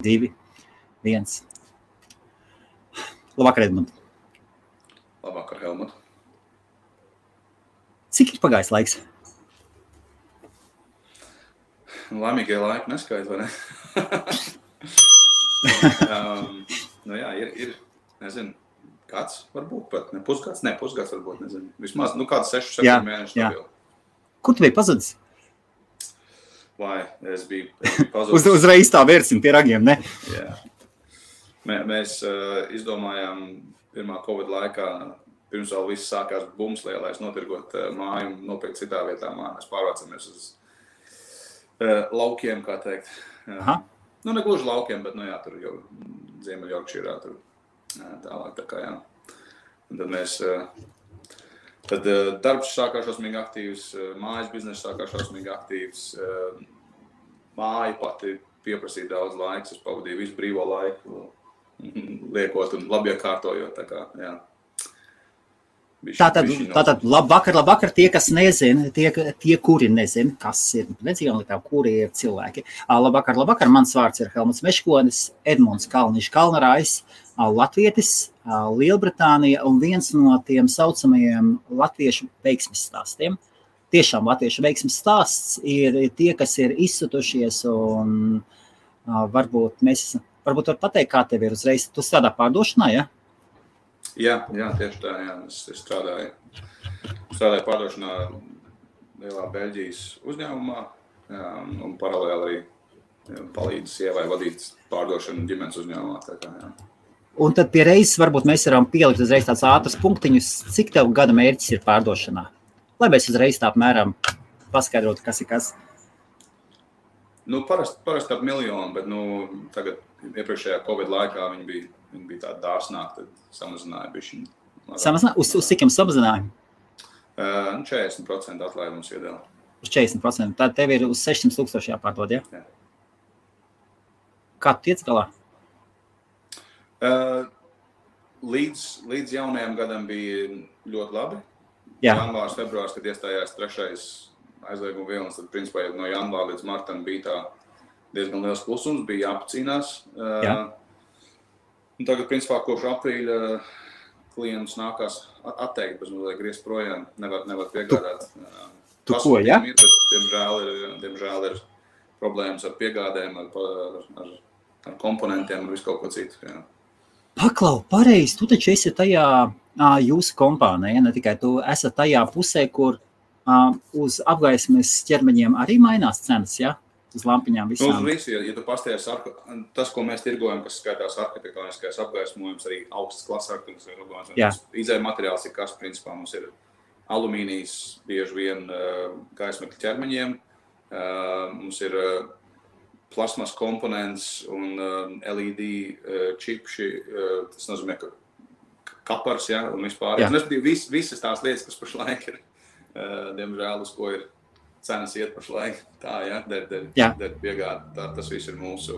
2, 1. Labvakar, Edmund. Labvakar, Helmut. Cik ir pagājis laiks? Laimīgie laiki neskait, vai ne? Jā, ir, nezinu, kāds varbūt pat, ne pusgads varbūt, nezinu. Vismaz, kāds 6-7 mēneši stabili. Kur tu biji pazudis? Vai, es biju pazudis. Uzreiz tā vērsim pie ragiem, ne? Jā. Mēs izdomājām pirmā Covid laikā, pirms vēl viss sākās bums lielais, notirgot māju un nopirkt citā vietā māju. Mēs pārvācamies uz laukiem, kā teikt. Aha. Ne gluži laukiem, bet, tur jau Ziemeļjorkšīrā tur tālāk, tā kā, jā. Un tad mēs, darbs sākās šausmīgi aktīvs, mājas biznesa sākās šausmīgi aktīvs, māja pati pieprasīja daudz laiks, es pavadīju visu brīvo laiku, liekot un labi iekārtojot, tā kā, jā. Tātad labvakar tie, kas nezina, tie, kuri nezina, kas ir nedzīvonlietām, kuri ir cilvēki. Labvakar, mans vārds ir Helmuts Meškonis, Edmunds Kalniņš Kalnarājs, latvietis, Lielbritānija un viens no tiem saucamajiem latviešu veiksmes stāstiem. Tiešām latviešu veiksmes stāsts ir tie, kas ir izsutušies un varbūt var pateikt, kā tev ir uzreiz. Tu strādā pārdošanā, ja? Jā, tieši tā, jā. Es strādāju pārdošanā lielā Beļģijas uzņēmumā un paralēli arī palīdzu sievai vadīt pārdošanu ģimenes uzņēmumā. Tā kā, jā. Un tad pie reizes varbūt mēs varam pielikt uzreiz tāds ātrs punktiņus, cik tev gada mērķis ir pārdošanā? Lai mēs uzreiz tā apmēram paskaidrotu, kas ir kas. Parasti ap 1 miljonu, bet tagad iepriekšējā Covid laikā viņi bija tādi dārsnāki, tad samazināja bišķiņu. Samazināja? Uz cik jums samazināja? 40% atlaidums iedēļ. Uz 40%. Tad tev ir uz 600 000 jāpārdod, ja? Jā. Kā tu tiec galā? Līdz jaunajam gadam bija ļoti labi. Jā. Janvārs, februārs, kad iestājās 3. aizlieguma vilnis, tad principā no janvāra līdz martam bija tā diezgan liels klusums, bija jāpacīnās. Jā. Un tagad, principā, kopš aprīļa klientus nākās atteikt, bez mazliet griezt projām, nevar piegādāt. Tu ko, ja? Diemžēl ir problēmas ar piegādēm, ar komponentiem un visu kaut ko citu. Jā. Paklau, pareizi, tu taču esi tajā jūsu kompānija, ne tikai tu esat tajā pusē, kur uz apgaismes ķermeņiem arī mainās cenas, ja? Uz lampiņām visām. Uz visu, ja tu pasties, tas, ko mēs tirgojam, kas skaitās arhitektoniskais apgaismojums, arī augsts klases arhitektoniskais apgaismojums. Izēja materiāls ir kas, principā, mums ir alumīnijas bieži vien gaismekļa ķermeņiem, mums ir plasmas komponents un LED čipši, tas nozīmē, ka kapars, ja, un vispār. Visas tās lietas, kas pašlaik ir, diemžēl, uz ko ir cenas iet pašlaik, tā, ja, der piegāda, tas viss ir mūsu.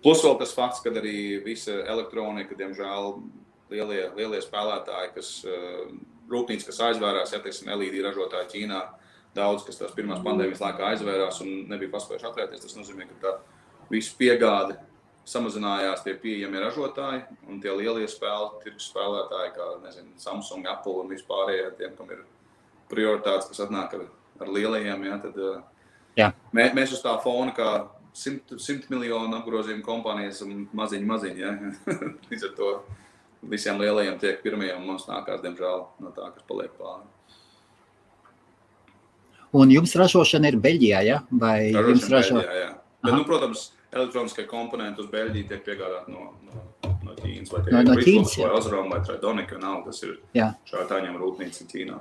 Plus vēl tas fakts, kad arī visa elektronika, diemžēl, lielie spēlētāji, rūpnīcas, kas aizvērās, ja, teiksim, LED ražotāji Ķīnā, daudz, kas tās pirmās pandēmijas laikā aizvērās un nebija paspējuši atvērties, tas nozīmē, ka tā visu piegāde samazinājās tie pieejamie ražotāji un tie lielie tirgus spēlētāji, kā, nezinu, Samsung, Apple un vispārējie, tiem, kam ir prioritātes, kas atnāk ar lielajiem, ja, tad mēs uz tā fona kā 100 miljonu apgrozījumu kompānijas un maziņi, ja. Līdz ar to visiem lielajiem tiek pirmie un mums nākās, diemžēl, no tā, kas paliek pāri. Un jums ražošana ir Beļģijā, ja? Vai jums Beļģijā, jā. Bet, protams, elektroniskie komponenti uz Beļģiju tiek piegādāti no Ķīnas, vai tie ir Ritloms, vai Osram, vai Tridonic, tas ir šātāņiem rūpnīca Ķīnā.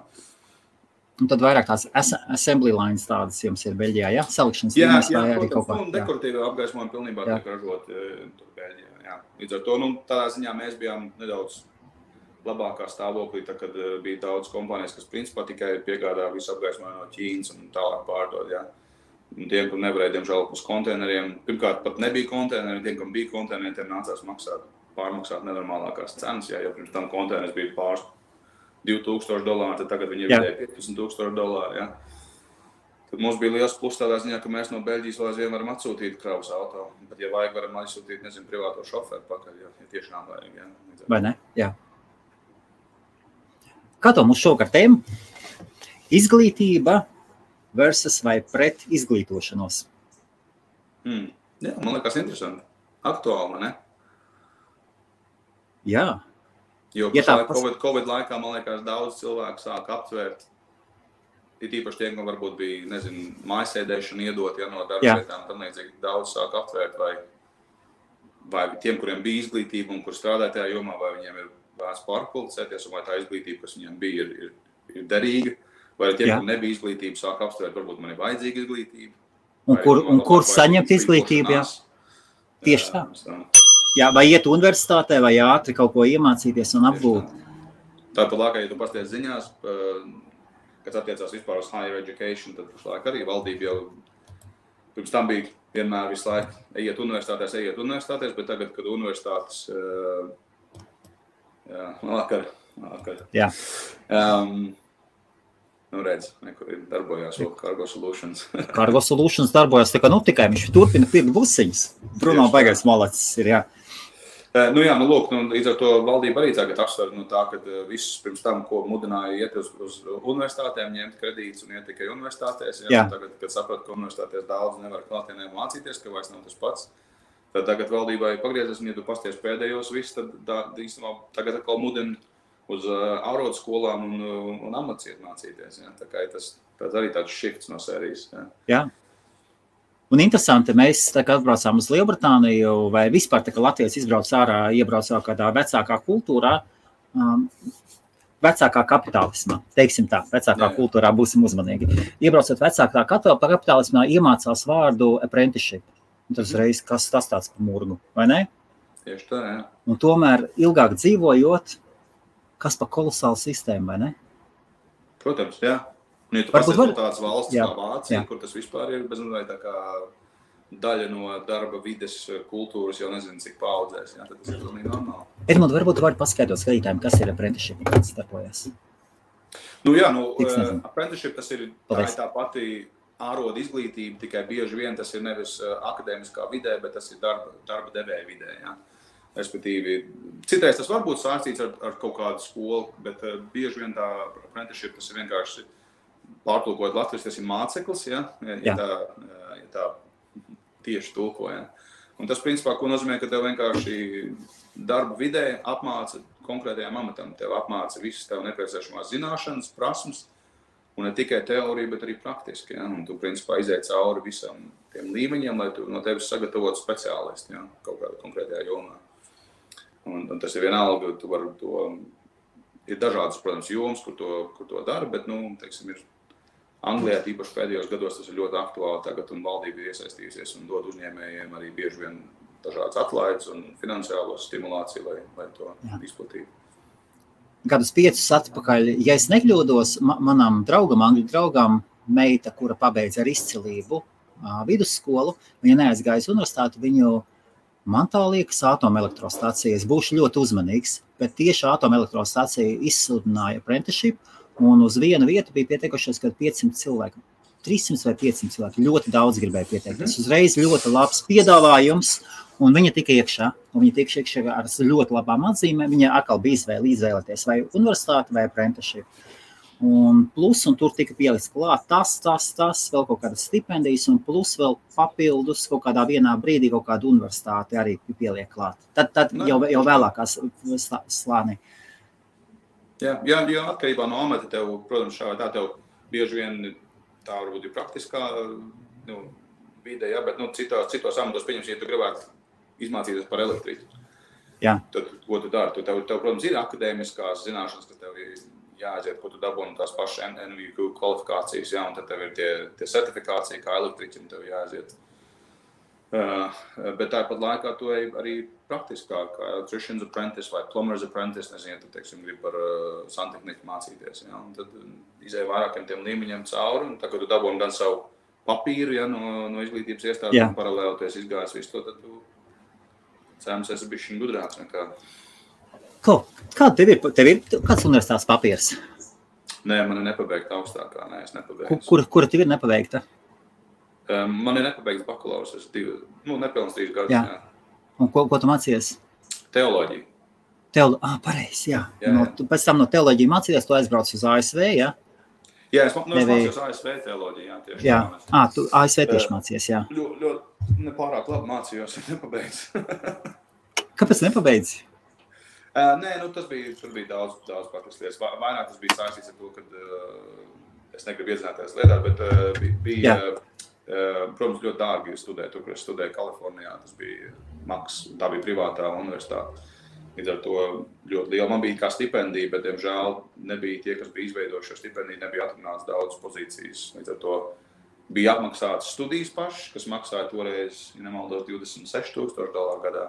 Un tad vairāk tās assembly lines tādas jums ir Beļģijā, ja? Salikšanas līnijas vai arī kaut kā? Jā, dekoratīva apgaismojuma pilnībā tiek ražot tur Beļģijā, jā. Līdz ar to, tādā ziņā mēs bijām nedaudz labākā stāvoklī, tā, kad bija daudz kompānijas, kas principā tikai piegādā visu apgaismojumu no Ķīnas un tālāk pārdod, jā. Un tiem, kur nevarēja, diemžēl, uz konteineriem, pirmkārt pat nebija konteineri, tiem, kam bija konteineri, tiem nācās pārmaksāt nenormālākās cenas, jā, jo pirms tam konteiners bija pāris $2,000, tad tagad viņi ir vidēji $15,000, ja. Tad mums bija liels plus tādā ziņā, ka mēs no Beļģijas vēl aizvien varam atsūtīt kravas auto. Bet, ja vajag, varam aizsūtīt, privāto šoferu pakaļ, ja tiešām vajag. Ja. Vai ne? Jā. Kā to mums šovakar tēma? Izglītība versus vai pret izglītošanos? Jā, man liekas interesanti. Aktuāli, ne? Jā. Jo COVID laikā, man liekas, daudz cilvēku sāk aptvērt. Ir īpaši tiem, ka varbūt bija, mājasēdēšana iedot, no darba vietām, tam līdzīgi daudz sāk aptvērt, vai tiem, kuriem bija izglītība un kur strādāja tajā jomā, vai viņiem ir vērts pārkvalificēties, un vai tā izglītība, kas viņiem bija, ir derīga, vai tiem, kuriem nebija izglītība, sāk aptvērt, varbūt man ir vajadzīga izglītība. Un kur saņemt izglītību, jā? Tieši tā. Jā, vai iet universitātē, vai ātri kaut ko iemācīties un apgūt. Tāpat laikā, ja tu pasties ziņās, kas attiecās vispār uz higher education, tad pašlaik arī valdība jau pirms tam bija vienmēr visu laiku ejiet universitātēs, bet tagad, kad universitātes vakar. Jā. Redz, nekur ir darbojās Cargo Solutions. Cargo Solutions darbojās, tikai viņš turpina pirkt busiņas. Bruno baigais malacis ir, jā. Līdz ar to valdība arī tagad apsver tā, ka visus pirms tam, ko mudināja iet uz universitātēm, ņemt kredītus un iet tikai universitātēs. Tagad, kad saprot, ka universitātēs daudz nevar klātienē mācīties, ka vairs nav tas pats, tad tagad valdībai pagriezes, un ja tu pasties pēdējos viss, tad īstenībā tagad atkal mudina uz ārodskolām un amats iet mācīties. Ja? Tā kā tas arī tāds shifts no sērijas. Ja? Jā. Un interesanti, mēs atbraucām uz Lielbritāniju, vai vispār Latvijas iebrauc kādā vecākā kultūrā, vecākā kapitālismā, teiksim tā, vecākā kultūrā būsim uzmanīgi. Iebraucot vecākā kapitālismā, iemācās vārdu apprenticeship. Un tas reiz, kas tas tāds pa murgu, vai ne? Tieši tā, jā. Un tomēr ilgāk dzīvojot, kas pa kolosālu sistēmu, vai ne? Protams, jā. Un, ja tu pasties tāds valsts kā Vācija, kur tas vispār ir bezmazliet tā kā daļa no darba vides kultūras, jau nezinu, cik paudzēs, tad tas ir pilnīgi normāli. Edmund, varbūt tu vari paskaidrot skatītājiem, kas ir apprenticeship, kāds starpojas? Apprenticeship tas ir tā pati āroda izglītība, tikai bieži vien tas ir nevis akadēmiskā vidē, bet tas ir darba devēja vidē, jā. Respektīvi, citreiz tas var būt saistīts ar kaut kādu skolu, bet bieži vien tā apprenticeship tas ir vienkārši pārtulkojot Latvijas, tas ir māceklis, ja tā tieši tulko. Ja. Un tas, principā, ko nozīmē, ka tev vienkārši darba vidē apmāca konkrētajām amatam. Tev apmāca visas tev nepieciešamās zināšanas, prasmes, un ne tikai teorija, bet arī praktiski. Ja. Un tu, principā, izēj cauri visam tiem līmeņiem, lai tu no tevis sagatavotu speciālisti, ja, kaut kādā konkrētajā jomā. Un tas ir vienalga, tu vari to, ir dažādas, protams, jomas, kur to dara, bet, teiksim, ir Anglijā tīpaši pēdējos gados tas ir ļoti aktuāli tagad, un valdība ir iesaistījusies un dod uzņēmējiem arī bieži vien dažādas atlaides un finansiālo stimulāciju, lai to izplatītu. Gadus 5 atpakaļ, ja es nekļūdos, manam draugam, angļu draugam, meita, kura pabeidza ar izcilību vidusskolu, viņa neaizgājas universitāti, viņu man tā liekas atomelektrostācija. Es būšu ļoti uzmanīgs, bet tieši atomelektrostācija izsludināja apprenticeship, un uz vienu vietu bija pieteikušies, kad 500 cilvēki, 300 vai 500 cilvēki, ļoti daudz gribēja pieteikties. Uzreiz ļoti labs piedāvājums, un viņa tika iekšā, ar ļoti labām atzīmēm. Viņa atkal bija izvēlēties vai universitāti vai apprenticeship. Un tur tika pielikts klāt tas, vēl kaut kādas stipendijas, un plus vēl papildus kaut kādā vienā brīdī kaut kāda universitāte arī pieliek klāt. Tad jau vēlākās slānī. Jā, atkarībā no amata tev, protams, šā vai tā tev bieži vien tā varbūt ir praktiskā vide, ja, bet citos amatos, pieņemsim, ja tu gribētu izmācīties par elektriku. Jā. Tad, ko tu dari? Tev, protams, ir akadēmiskās zināšanas, kas tev ir jāaiziet, ko tu dabūni tās pašas NVQ kvalifikācijas, ja, un tad tev ir tie certifikācija, kā elektriķim tev jāaiziet. Bet tāpat laikā tu arī praktiskāk, kā electrician's apprentice vai plumber's apprentice, nezinu, ja tu, teiksim, gribi par santehniku mācīties. Ja, un tad izēj vairākiem tiem līmeņiem cauri, un tad, kad tu dabūni gan savu papīru, ja, no izglītības iestādes, un paralēli tu esi izgājis visu to, tad tu cēmas esi bišķiņ gudrāks nekā. Kāda tev ir kāds universitātes papīrs? Nē, man ir nepabeigta augstākā. Nē, es nepabeigtu. Kura tev ir nepabeigta? Man ir nepabeigts bakalaurs. Es nepilns 3 gadus. Jā. Un ko tu mācījies? Teoloģiju. Pareizi, jā. Pēc tam no teoloģiju mācījies, tu aizbrauc uz ASV, jā? Jā, es mācījos ASV teoloģiju, jā, tieši. Jā, tu ASV tieši mācījies, jā. Ļoti nepārāk labi mācījos, nepabeidz. Kāpēc nepabeidz? Nē, tur bija daudz paklas lietas. Vairāk tas bija saistīts ar to, ka es negribu iedzināties lietā, bet bija, protams, ļoti dārgi studēt, tur, kur es studēju Kalifornijā, tas bija maks, tā bija privātā universitāte. Līdz ar to ļoti liela. Man bija kā stipendija, bet, diemžēl, nebija tie, kas bija izveidojuši šo stipendiju, nebija atrunāts daudz pozīcijas. Līdz ar to bija apmaksātas studijas pašas, kas maksāja toreiz, ja nemaldos, $26,000 gadā.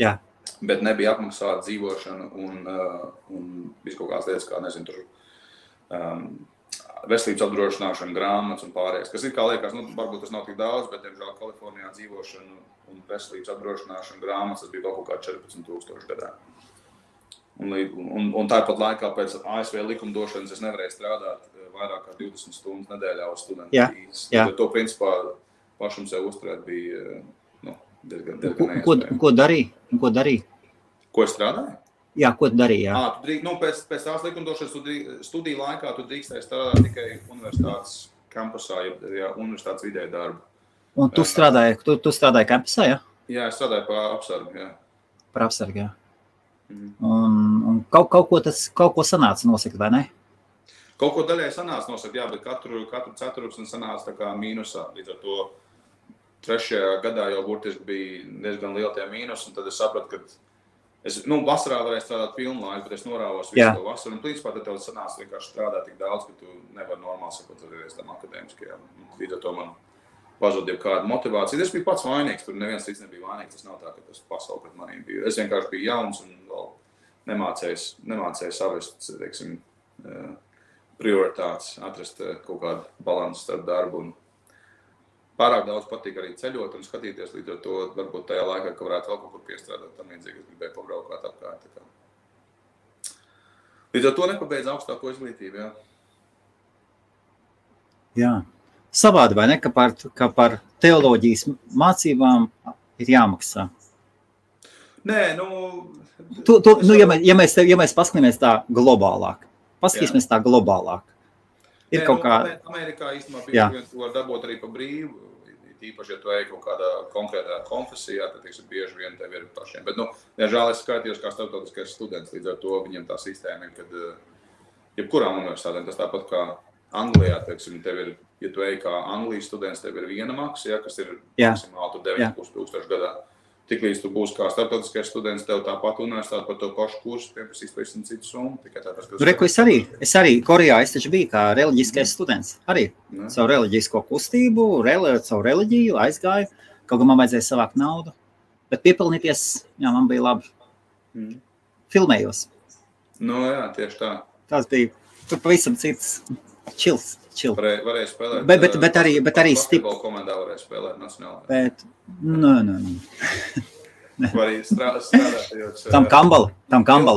Jā. Bet nebija apmaksāta dzīvošana un visu kaut kādas lietas, kā, nezinu, tur veselības apdrošināšana, grāmatas un pārējais. Kas ir, kā liekas, varbūt tas nav tik daudz, bet, diemžēl, Kalifornijā dzīvošana un veselības apdrošināšana, grāmatas, tas bija vēl kaut kā $14,000 gadā. Un tāpat laikā pēc ASV likumdošanas es nevarēju strādāt vairāk kā 20 stundas nedēļā uz studentu vīzes. To, principā, pašam sev uzturēt bija diezgan neiespējami. Ko darīji? Ko es strādāju? Jā, ko tu darīji? Jā. Pēc tās likumdošanas studiju laikā tu drīkstēji strādāt tikai universitātes kampusā, ja universitātes vidē darbu. Un tu strādāji kampusā, jā? Jā, es strādāju par apsargu, jā. Par apsargu, jā. Un kaut ko sanāca nosakt, vai ne? Kaut ko daļai sanāca nosakt, jā, bet katru ceturksni sanāca tā kā mīnusā. Līdz ar to 3. gadā jau burtiski bija diezgan liela tie mīnusi, un tad es sapratu, ka es, vasarā varēju strādāt pilnu laiku, bet es norāvos visu to vasaru, un principā tad tev sanāca vienkārši strādāt tik daudz, ka tu nevari normāli sakoties tam akadēmiskajam. Līdz ar to man pazuda kāda motivācija. Es biju pats vainīgs, tur neviens cits nebija vainīgs. Tas nav tā, ka tas pasauli pret manīm bija. Es vienkārši biju jauns un vēl nemācēju savest, teiksim, prioritātes, atrast kaut kādu balansu starp darbu. Un pārāk daudz patīk arī ceļot un skatīties, līdz ar to varbūt tajā laikā, ka varētu vēl kaut kur piestrādāt tam līdzīgi, es gribēju pabraukāt apkārt. Līdz ar to nepabeidz augstāko izglītību, jā. Jā. Savādi, vai ne, ka par teoloģijas mācībām ir jāmaksā? Nē, ja mēs paskatāmies tā globālāk, ir kaut kā... Amerikā īstenībā bieži vien var dabūt arī pa brīvu, īpaši, ja tu ej kaut kādā konkrētā konfesijā, tad bieži vien tev ir pašiem. Bet, diemžēl es skaitījos kā starptautiskais students, līdz ar to viņiem tā sistēma ir, kad jebkurām universitātēm tas tāpat kā Anglijā, teiksim, tev ir, ja tu ej kā Anglijas students, tev ir viena maksa, kas ir maksimāli 9,500 gadā. Tiklīdz tu būsi kā starptautiskais students, tev tāpat universitāte par to pašu kursu pieprasīs pavisam citu summu. Es arī Korejā, es taču biju kā reliģiskais students. Arī savu reliģisko kustību, savu reliģiju aizgāju, kaut kā man vajadzēja savākt naudu. Bet piepilnīties, jā, man bija labi. Filmējos. Jā, tieši tā. Tas bija tur pavisam cits čils. Varēja spēlēt. Bet arī basketbola komandā varēja spēlēt nacionālā. Bet, Vai strādāt? Tam Kambala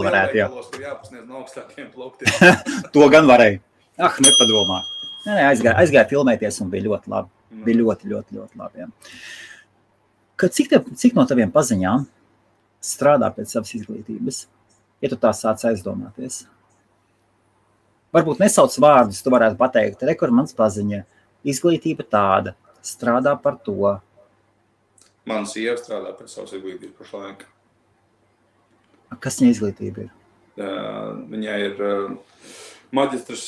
varētu, jā. Kur jāpasniedz no augstākiem plauktiem. To gan varēja. Nepadomā. Aizgāja filmēties un bija ļoti labi. Bija ļoti, ļoti, ļoti labi, jā. Cik no taviem paziņām strādā pēc savas izglītības? Ja tu tā sāc aizdomāties? Varbūt nesauc vārdus, tu varētu pateikt, kur mans paziņa, izglītība tāda, strādā par to. Mana sieva strādā pēc savas izglītības pašlaik. Kas viņa izglītība ir? Viņai ir maģistrs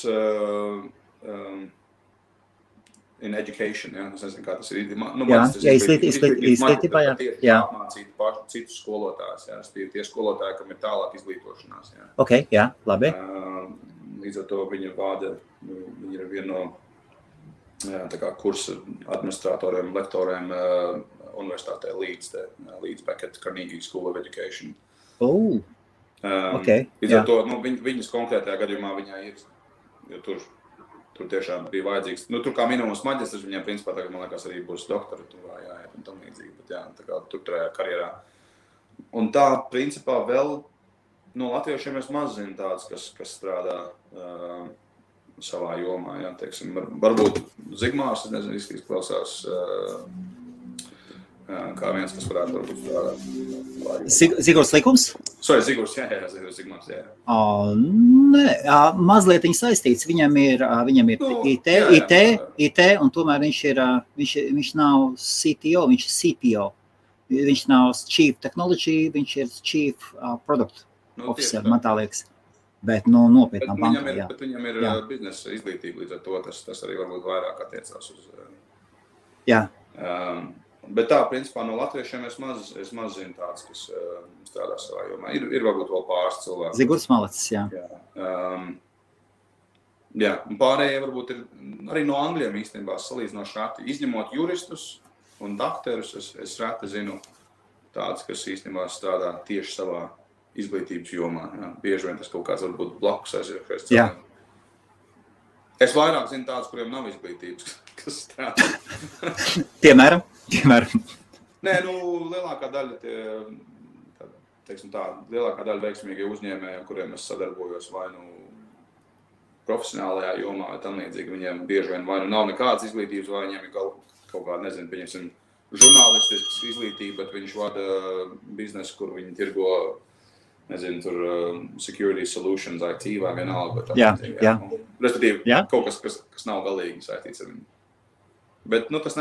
in education, jā, es nezinu, kā tas ir. Izglītībā, jā. Apmācīt citus skolotājus, jā, tie skolotāji, kam ir tālāk izglītošanās, jā. Ok, jā, labi. Līdz ar to viņa ir viena no tā kā kursa administratoriem, lektoriem universitātē Leeds Beckett Carnegie School of Education. Okay, līdz ar to viņas konkrētajā gadījumā viņai ir, jo tur tiešām bija vajadzīgs. Tur kā minimums maģistrs, viņiem principā tagad, man liekas, arī būs doktoratūrā, jāiet un tam līdzīgi, bet tā kā tur tajā karjerā. Un tā principā vēl no latviešiem es maz zinu tāds, kas strādā savā jomā, jā, teiksim, varbūt Zigmārs, nezinu, izklausās kā viens, kas varētu varbūt strādāt. Zigurs Likums? Zigurs, jā, Zigmārs, jā. Nē, mazliet viņš saistīts, viņam ir IT, un tomēr viņš nav CTO, viņš ir CPO. Viņš nav Chief Technology, viņš ir Chief Product Officer, man tā liekas. Bet nopietnā bankā, jā. Bet viņam ir biznesa izglītība, līdz ar to tas arī varbūt vairāk attiecās uz... Jā. Bet tā, principā, no latviešiem es maz zinu tāds, kas strādā savā jomā. Ir varbūt vēl pāris cilvēki. Zigurs Malacis, jā. Jā, un pārējie varbūt ir arī no angļiem īstenībā salīdzinoši reti. Izņemot juristus un dakterus, es reti zinu tāds, kas īstenībā strādā tieši savā izglītības jomā. Jā. Bieži vien tas kaut kāds varbūt blakus aizviekais cilvēkiem. Es vairāk zinu tādus, kuriem nav izglītības, kas strādā. Piemēram? Nē, lielākā daļa lielākā daļa veiksmīgie uzņēmēji, ar kuriem es sadarbojos vai profesionālajā jomā vai tam līdzīgi, viņiem bieži vien vai nav nekādas izglītības, vai viņiem ir kaut kāda, nezinu, pieņemsim, žurnālistiskas izglītība, bet viņš vada biznesu, kur viņi tirgo, nezinu, tur security solutions, IT vai vienalga. Jā. Respektīvi, kaut kas nav galīgi saistīts ar viņu. Bet, tas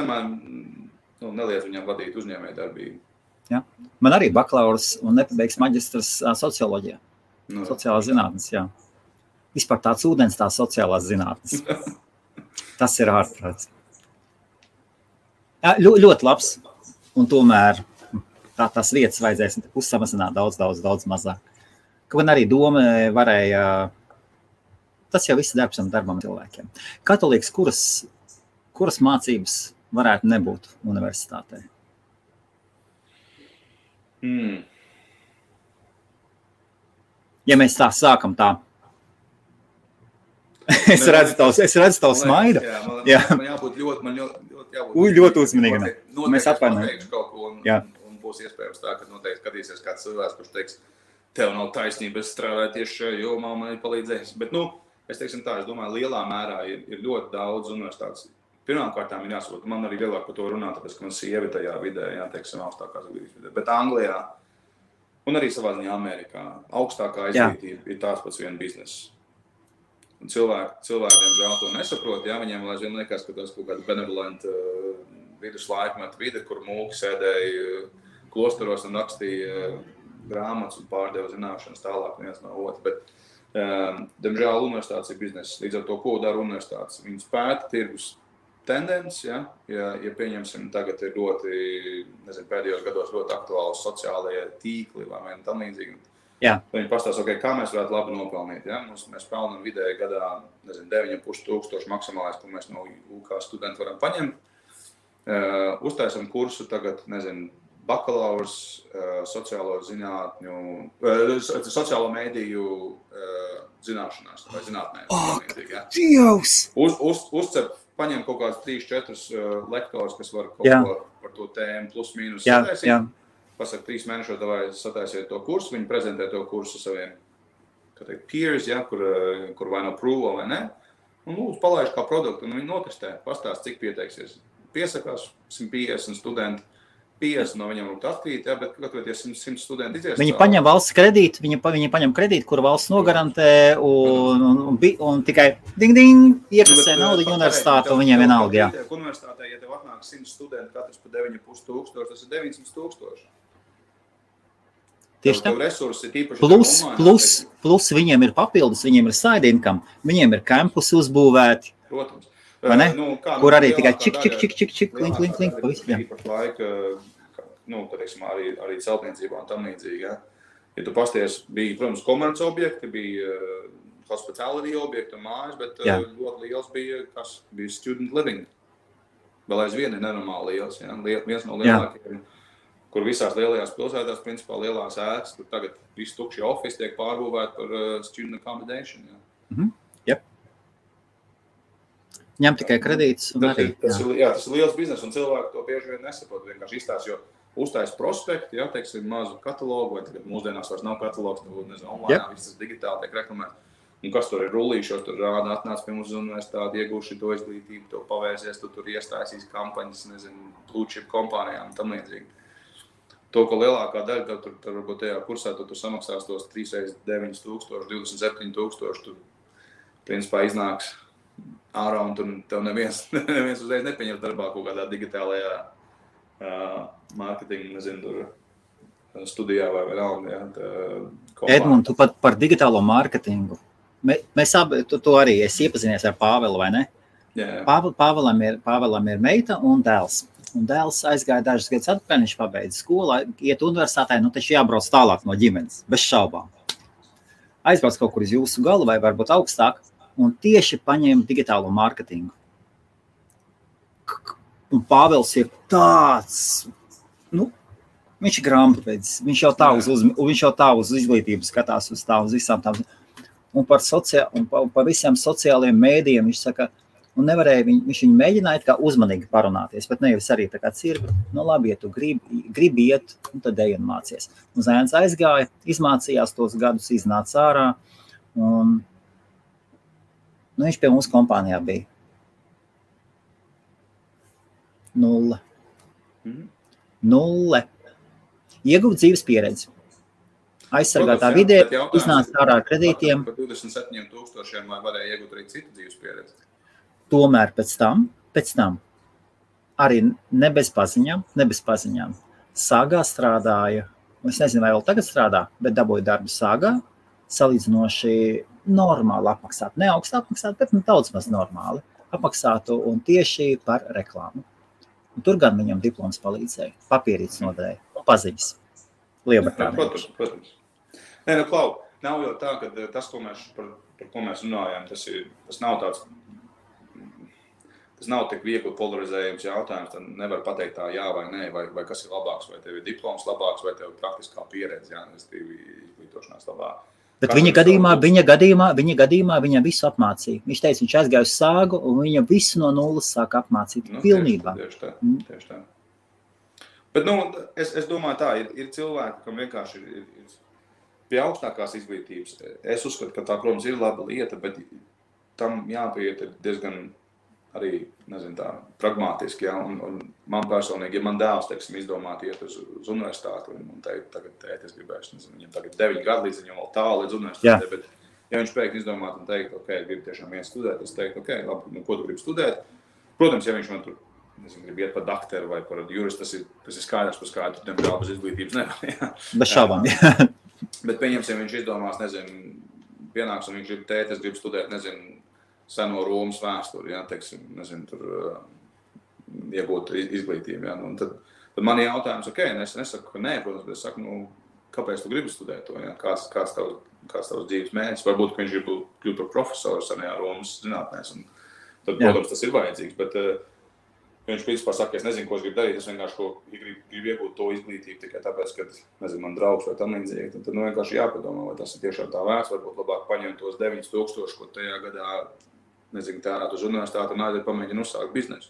neliedz viņam vadīt uzņēmēju darbību. Jā. Man arī bakalaurs un nepabeigts maģistrs socioloģijā. Sociālās zinātnes, jā. Vispār tāds ūdens, tās sociālās zinātnes. Tas ir ārprāts. Jā, ļoti labs. Un tomēr tās vietas vajadzēs uzsamazināt daudz mazāk. Kaut arī doma varēja... Tas jau viss darbam cilvēkiem. Kā tu liekas, kuras mācības varētu nebūt universitātē? Ja mēs tā sākam tā. Es redzu tavu smaidu. Man jābūt ļoti uzmanīgam. Mēs atvainojam. Un būs iespējams tā, ka noteikti skatīsies kāds cilvēks, kurš teiks, tev nav taisnība, es strādāju tieši šajā jomā, man ir palīdzējis. Bet, es teiksim tā, es domāju, lielā mērā ir ļoti daudz universitātes. Pirmkārtām ir jāsaprot, man arī vieglāk par to runāt, tāpēc, ka man sievi tajā vidē, teiksim, augstākās izglītības vidē. Bet Anglijā un arī savā ziņā Amerikā augstākā izglītība ir tās pats viena biznesa. Un cilvēkiem žēl to nesaprot, viņiem aizvien liekas, ka tas kaut kāda benevolenta viduslaikmeta vide, kur mūki sēdēja klosteros un rakstīja grāmatas un pārdeva zināšanas tālāk viens no otra. Bet, diemžēl, universitātes ir biznesa. Līdz ar to, ko dara universitātes? Viņas pēta tirgus tendenci, ja pieņemsim, tagad ir ļoti, nezinu, pēdējos gados ļoti aktuāli sociālajie tīkli vai tam līdzīgi. Viņi pastāsta, kā mēs varētu labi nopelnīt. Ja? Mēs pelnam vidēji gadā, nezinu, 9,500 maksimālais, ko mēs no UK studenti varam paņemt. Uztaisam kursu tagad, nezinu, bakalaurs sociālo zinātņu, sociālo mēdīju zināšanās vai zinātnē. Uzcep, paņem kaut kāds 3-4 lektors, kas var kaut ko par to tēmu plus mīnus sataisīt. Pasaka 3 mēnešos, davai sataisiet to kursu, viņi prezentē to kursu saviem, peers, kur vai no prūvo vai ne. Un lūdzu, palaiž kā produktu, un viņi notestē, pastāst, cik pieteiksies. Piesakās 150 studenti, 50 no viņiem rūkt atkrīt, bet katru 100 studenti izies. Viņi paņem valsts kredītu, viņi paņem kredītu, kuru valsts nogarantē, un tikai ding, iekasē naudu universitāti, un viņiem vienalga, jā. Universitātē, ja tev atnāk 100 studenti, katrs pa 9,500, tas ir 900,000. Tieši tā. Plus viņiem ir papildus, viņiem ir side income, viņiem ir campusi uzbūvēti. Protams. Kur arī tikai čik, link, pavisam. Īpaši laika, teiksim, arī celtniecībā un tam līdzīgi. Ja tu pasties, bija, protams, komerci objekti, bija hospitality objekti un mājas, bet ļoti liels bija student living. Vēl aizvien ir nenormāli liels, viens no lielākiem. Kur visās lielajās pilsētās, principā lielās ēkas, kur tagad visi tukšie office tiek pārbūvēti par student accommodation. Ņem tikai kredītus un arī. Tas ir liels biznes, un cilvēki to bieži vien nesaprot, vienkārši izstāst, jo uztais prospekti, teiksim, mazu katalogu, vai tagad mūsdienās vairs nav katalogs, nezinu, online, viss tas digitāli tiek reklamēts. Un kas tur ir rullīšos, tur rāda, atnāc pie mums uz universitāti, iegūši to izglītību, to pavērsies, tu tur iestāsīs kampaņas, nezinu, blue chip kompānijām un tam līdzīgi. To, ko lielākā daļa, tur varbūt tajā kursā, tu samaksās tos 3x9,000, 27,000, tu principā iznāks ārā un tur tev neviens uzreiz nepieņem darbā kaut kādā digitālajā mārketinga, nezinu, tur studijā vai vienalga. Edmund, tu pat par digitālo mārketingu. Mēs abi, tu arī esi iepazinies ar Pāvelu, vai ne? Jā. Pāvelam ir meita un dēls. Un dēls aizgāja dažus gadus atpakaļ, viņš pabeidza skolu, iet universitātē, taču jābrauc tālāk no ģimenes, bez šaubām. Aizbrauc kaut kur uz jūsu galu vai varbūt augstāk, un tieši paņēma digitālo mārketingu. Un Pāvels ir tāds, viņš ir grāmatvedis, viņš jau tā uz izglītību skatās, uz visām tām. Un par visiem sociālajiem mēdījiem viņš saka, un nevarēja, viņš viņu mēģināja kā uzmanīgi parunāties, bet nevis arī tā kā cirvi, labi, ja tu gribi iet, tad ej un mācies. Un zēns aizgāja, izmācījās tos gadus, iznāca ārā, un viņš pie mums kompānijā bija. 0. Ieguva dzīves pieredzi. Aizsargātā vidē, iznāca ārā ar kredītiem. Par 27,000 vai varēja iegūt arī citu dzīves pieredzi? Tomēr pēc tam, arī ne bez paziņām, Sāgā strādāja, es nezinu, vai vēl tagad strādā, bet dabūja darbu Sāgā, salīdzinoši normāli apmaksāt, ne augstu apmaksāt, bet daudz maz normāli apmaksātu un tieši par reklāmu. Un tur gan viņam diploms palīdzēja, papierītes noderēja un paziņas. Lielbritānijā. Protams. Nē, Klau, nav jau tā, ka tas, par ko mēs runājām, tas nav tāds, tas nav tik viegli polarizējums jautājums, tad nevar pateikt tā jā vai nē, vai kas ir labāks, vai tev ir diploms labāks, vai tev ir praktiskā pieredze, izglītošanās labāk. Bet viņa gadījumā viņa visu apmācīja. Viņš teica, viņš aizgāja uz Sāgu, un viņa visu no nulles sāka apmācīt pilnībā. Tieši tā. Bet, es domāju tā, ir cilvēki, kam vienkārši ir pie augstākās izglītības. Es uzskatu, ka tā, protams, ir laba lieta, bet tam jāpieiet diezgan arī, nezinu tā, pragmātiski, ja, un man personīgi, ja man dēls, teiksim, izdomāt iet uz universitāti un teikt, tagad es gribēšu, nezinu, viņam tagad 9 gadu līdz viņam vēl tālu līdz universitātei, bet ja viņš pēkšņi izdomāt un teikt, ok, gribu tiešām vien studēt, es teiktu, ok, labi, ko tu gribi studēt? Protams, ja viņš man tur grib iet par doktoru vai par juristu, tas ir skaidrs, par skaidu, diemžēl bez izglītības nevar. Ja. Bez šaubām, jā. Bet pieņemsim, viņš izdomās, nezinu, pienāks un viņš grib tēt, es gribu studēt, nezinu, seno Romas vēsturi, ja, teiksim, nezinu, tur iegūt izglītību. Ja. Tad man ir jautājums, ok, es nesaku, ka nē, protams, bet es saku, kāpēc tu gribi studēt to, ja? Kāds tavs dzīves mērķis? Varbūt, ka viņš grib kļūt par profesoru senajā Romas zinātnēs, un tad, protams, tas ir vajadzīgs, bet viņš principā saka, es nezinu, ko es gribu darīt, es vienkārši gribu iegūt to izglītību tikai tāpēc, ka, nezinu, man draugs vai tam līdzīgi, tad vienkārši jāpadomā, vai tas ir tiešām tā vērts, varbūt labāk paņemt tos 9,000, ko tajā gadā, nezinu, tērēt uz universitāti un aiziet pamēģina uzsākt biznesu.